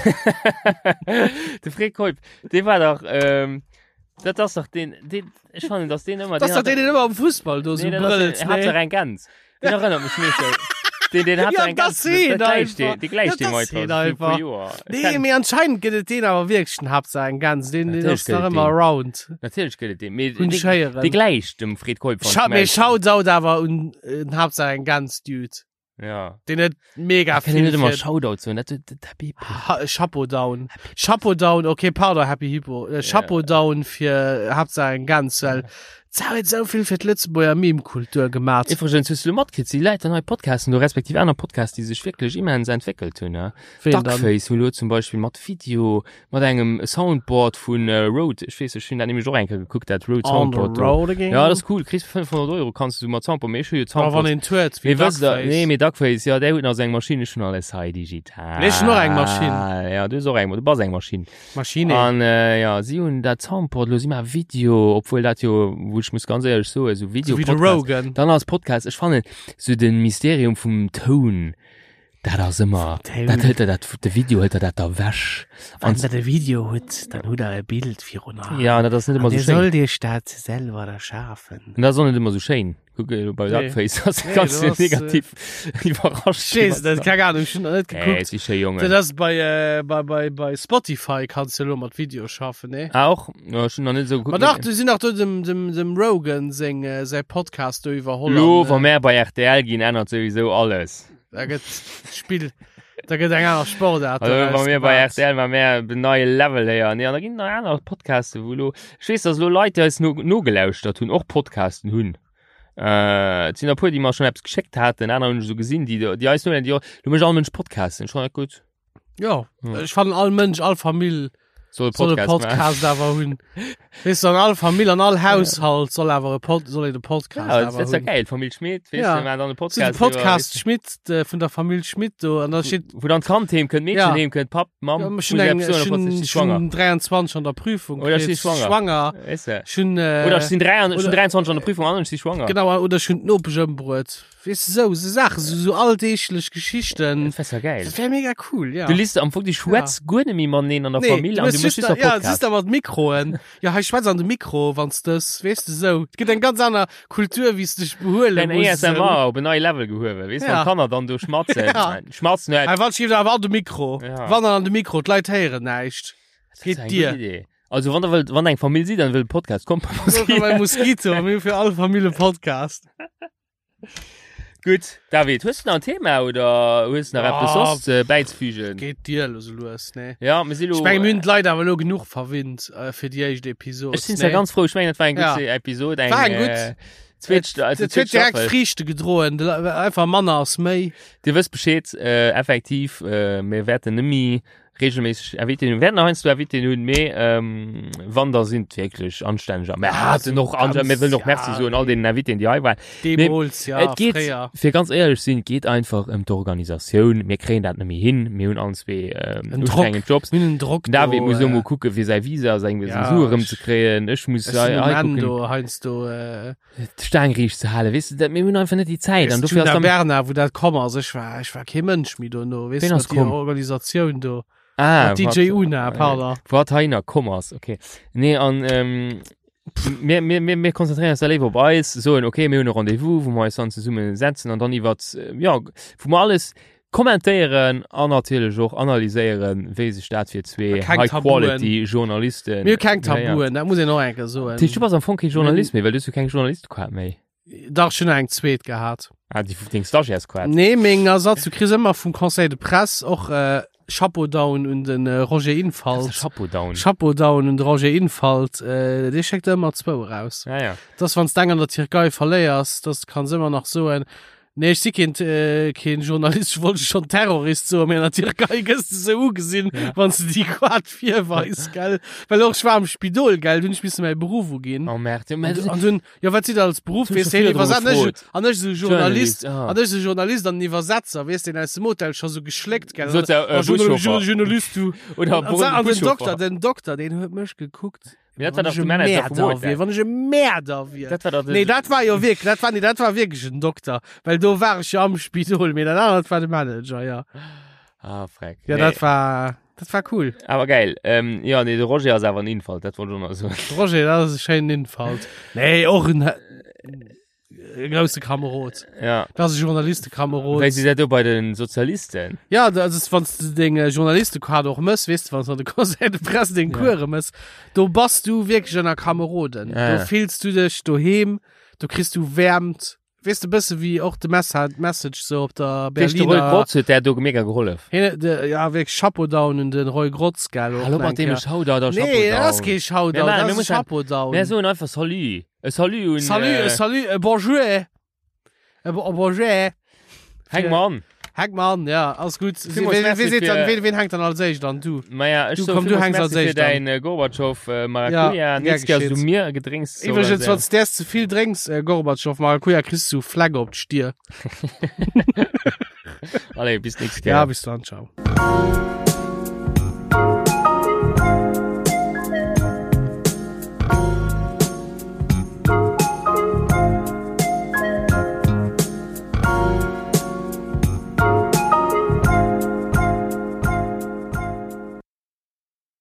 De Fred Keup, dee war dach, ähm, dat ass dach deen, deen, ech fannen, dass deen ëmmer, Das ass dach deen, deen ëmmer am Fussball do sou Nee, dat ass brëllt, deen, hat nee? dach eng Gäns. Deen erënnert mech meeschtens. Den, den hat Ja, eng das ganz, sehen dat gleich, einfach. die, die gleich Ja, dem das heute sehen vor einfach. Joer. Nee, mee anscheinend gëtt et deen awer wierklech den Haaptsaach eng Gans. Den, den Natierlech ass nach gëtt et ëmmer deen. around. Natierlech gëtt et deen. Mee Hunn dee- ech héieren. dee gläich dem Fred Keup. Scha mee Shoutout awer un äh, den Haaptsaach eng Gans Dude. Ja. Den huet mega Kann ich net vill ëmmer fir Shoutout soen, dat dat Happy Hippo. Ha Chapeau down. Chapeau down, okay, pardon, Happy Hippo. Äh, Chapeau down fir Haaptsaach eng Gans, well se huet esou vill fir d'Lëtzebuerger Meme-Kultur gemat. Iwwregens hues du lo matkritt, si Leit an nei Podcasten do, respektiv aner Podcasts, déi sech wierklech immens entwéckelt hunn, ne? Ween dann? Duckface hunn lo zum Beispill mat Video, mat engem Soundboard vun äh, Rode, ech weess, ech hunn dat nämlech och eng Kéier gekuckt, dat Rode On the Soundboard do. road again. Ja, dat ass cool, kriss fir 500 Euro kanns du mat Soundboard, mee ech hu jo Aber wann Soundboard. een huet, wéi Mee wësst der, Duckface. nee, mee Duckface, ja, där huet nach seng Maschinn, ech hunn alles hei digital. Nee, ech hunn och eng Maschinn. Ja, du hues och eng, du bass eng Maschinn. Maschine. An äh, ja, si hunn dat Soundboard, lo si mar Video, obwuel dat jo, wou ech muss ganz éierlech soen, sou Video So wéi de Rogan. Dann als Podcast, ech fannen sou den Mysterium vum Toun, dat ass ëmmer, Toun. dat hëlt der dat, de Video hëlt der dat da wech. Wann der de Video hutt, dann hutt der e Bild virun Aen. Ja, an dat ass net ëmmer An sou Dir schéin. sollt iech dat selwer erschafen. An dat ass och net ëmmer sou schéin. Kuck elo bei Nee. Duckface, ass Nee, ganz du ass, äh, negativ iwwerrascht. Ech weess net, keng Ahnung, ech hunn nach net Nee, gekuckt. si schéi Jongen. Dat ass bei, äh, bei, bei, bei Spotify kanns du elo mat Video schaffen, nee? Ah, och? Ja, ech hunn nach net esou geguckt. Ma dach, du sinn nach do dem, dem, dem Rogan seng, äh, säi Podcast do iwwerholl. Lo, an, äh, wa mär bei RTL ginn, ännert souwisou alles. Da gëtt d'Spill, da gëtt eng aner Sportart. Also, wa doraus mir bei gemaat. RTL, wa mär den neie Level héieren. Nee, an da ginn nach aner Podcasten, wou lo, ech weess, dass lo Leit, déi eis no, nogelauschtert hunn, och Podcasten hunn. Äh, et sinn der puer, déi mer schonn eppes geschéckt haten, aner hunn ech esou gesinn, déi, déi eis nolauschteren, déi och, lo mécht all Mënsch Podcasten, ech fannen dat gutt. Ja, Hm. ech fannen all Mënsch, all Famill Soll e soll e Podcast machen. Podcast awer hunn. Weess du, an all Famill, an all Haushalt soll awer e Pod, soll een e Podcast Ja, dat awer ass ja hunn. geil, Famill Schmit, weess Ja. du, maachen dann e So de Podcast. Podcast Schmidt, de, vun der Famill Schmidt do, an da steet, Wou dann d'Kand heem kënnt, d'Meedchen Ja. heem kënnt, Papp, Mamm, ja, muss ech hunn ich eng, eppes soen, ech obwohl hunn, ech si ech schwanger. hunn 23 an der Prüfung Oder ech si kritt, schwanger. schwanger. Weess du. Ech hunn, äh, Oder ech sinn 23 ech hunn oder- 23 an der Prüfung an ech si schwanger. Genau, oder ech hunn d'Nopesch ëmbruet. Weess du, sou, sou Saachen, sou, sou alldeeglech Geschichten. Dat wär ja geil. Dat wär mega cool, ja. Du liest am Fong, du schwätz guer net méi mateneen an der Nee, Famill du an hues du méchs just just da, nach ja, Podcast. just da mat Mikroen. Ja, hei schwätz an de Mikro, wanns dës, weess du, sou. Et gëtt eng ganz aner Kultur, wéi s du dech behuele Dein muss. ASMR op en neie Level gehuewen, weess, Ja. wann d'Kanner dann do schmatzen. Ja. Schmatzen net. Hei, wann schieft awer an de Mikro. Ja. Wann an de Mikro, d'Leit héieren näischt. Das Geet ist eng dir. gutt Idee. Also wann der wëllt, wann eng Famill sidd an wëllt Podcast, kommt bei So, bei Moskito. Moskito, mir hu fir all Famill e Podcast. Gutt, David, hues du nach en Thema oder hues du nach Ja. eppes soss äh, bäizefügen? Geet dir lo sou lues, nee? Ja, mir si lo. Ech menge mir hunn d'Leit awer lo genuch verwinnt äh, fir déi éischt Episod. Ech sinn zwar ganz frou, ech mengen, dat war eng gutt Ja. Episod, eng, War eng gutt. äh, zweet, also Et zweet huet direkt Staffel. Friichte gedroen, de Le- einfach manner ass méi. Dir wësst Bescheed, äh, effektiv, äh, mir wäerten nëmmi regelméisseg Invitéen hunn. Wäerten heiansdo Invitéen hunn, mee ähm, wann da sinn et wierklech anstänneger. Mir haten och ganz, mir wëllen och Merci ja. soen all deenen Invitéen, déi hei waren. Deemools, ja, et geet, fréier. fir ganz éierlech sinn, et geet einfach ëm d'Organisatioun. Mir kréien dat net méi hin. Mir hunn allen zwee ähm, En Drock. ustrengend Jobs. Mir hunn en Drock Den David do, muss elo äh, mol kucke fir säi Visa, seng Ja, Sue ech- erëmzekréien. Ech muss Ech sinn hei um Enn kucken, do, heiansdo, äh, d'Staang riicht ze halen. Weess du, dat, mir hunn einfach net déi Zäit. An dofir ass Djuna dann Berna, wou dat komm ass, ech war, ech war kee Mënsch méi dono, weess Ween du, ass mat déi komm? Organisatioun do. Ah, Mat DJ wat- Una, pardon. Wat heiner komm ass, okay. Nee, an ähm, mir, mir, mir, mir konzentrieren uns da léiwer op eis, soen, okay, mir hunn e Rendez-vous, wou mer eis dann zesumme setzen an dann iwwert, äh, ja, wou mer alles kommentéieren an natierlech och analyséieren, wéi sech dat fir zwee Keng Tabuen. High-Quality-Journalisten. Mir hu keng Ja, ja. Tabuen, dat muss een och eng Kéier soen. Dat heescht, du bass am Fong kee Journalist méi, well du hues jo keng Journalistequart méi. Dach, ech hunn nach eng zweet gehat. Ah, déi deng Stagiairesquart. Nee, meng Ersatz, du kriss ëmmer vum Conseil de Presse och äh, Chapeau down un den äh, Roger Infalt. Chapeau down. Chapeau down un de Roger Infalt, äh, dee schéckt ëmmer zwou eraus. Ja, ja. Dass wann s d'eng an der Tierkei verléiers, dass kanns ëmmer nach soen, nee, ech si keen, äh, keen Journalist, ech wollt schon Terrorist soen, mee an der Tierkei gëss de sou ugesinn, Ja. wann s de déi Quad virweis, gell. Well och ech war am Spidol, gell, dunn ech misse mäi Beruff uginn. Oh merde. Ja, An, du- an dunn, jo, wat sidd der als Beruff, Hun weess scho de, virdru Iwwerset, an ech, gefrot. an ech sou Journalist, Journalist, ah. an ech sou Journalist an Iwwersetzer, weess den aus dem Hotel scho sou geschléckt, gell. Sot se, äh, Oh, Journal- Buschauffer. Journalist, du. Oder An, an den Buschauffer. Dokter, den Dokter, den huet mech gekuckt. Mee dat war Wann dach ech de e Manager vum Mäerder Hotel. wier, wann ech e Mäerder wier. Dat war dach de Nee, dat war jo wierklech, dat war, nee, dat war wierklech en Dokter, well do war ech jo am Spidol, mee dat anert war de Manager, ja. Ah, freck. Ja, Nee. dat war, dat war cool. Awer geil. Ähm, ja, nee, de Roger ass awer en Infalt, dat wollt ech och nach soen. De Roger, dat ass e schéinen Infalt. Nee, och en. e grousse Kamerod. Ja. Dat ass e Journalistekamerod. Wéi si dat do bei den Sozialisten? Ja, dat ass, wann s du deng äh, Journalistekaart och mëss, weess du, wann s du an de Conseil de Presse deng Ja. Kuere mëss, do bass du wierklech ënner Kameroden. Ja, ja. Do fills du dech doheem, do kriss du Wäermt. Weess du, bësse wéi och de Messa Message sou op der Weess de, Roy Berliner. Grotz huet där do mega gehollef. Hien, de, ja, wierklech Chapeau down un den Roy Grotz, gell, och Hallo nach mat eng deem Kéier. Shoutout a Chapeau Nee, dat ass down. kee Mir Shoutout, maachen- dat mir ass e mussen- Chapeau down. Mir soen einfach Salut. E Salut un. Salut, äh, e salut, e bonjour. E bo- e bonjour. Häng mer an. Häng mer an, ja, alles gutt. Villmools Wien, merci wien seet dann, fir- wien, wien hänkt dann als éischt an? Du. Maja, ech Du, soe komm, du villmools hänks als Merci fir éischt an. däin äh, Gorbatschow äh, Maracuja. Ja, Nächst Kéier gär du geschieht. mir Gedrénks Iwwregens, organiséieren. wann s däers ze vill drénks, äh, Gorbatschow Maracuja, kriss du Flecke op d'Stier. Allez, bis nächst Kéier. Ja, bis dann, ciao.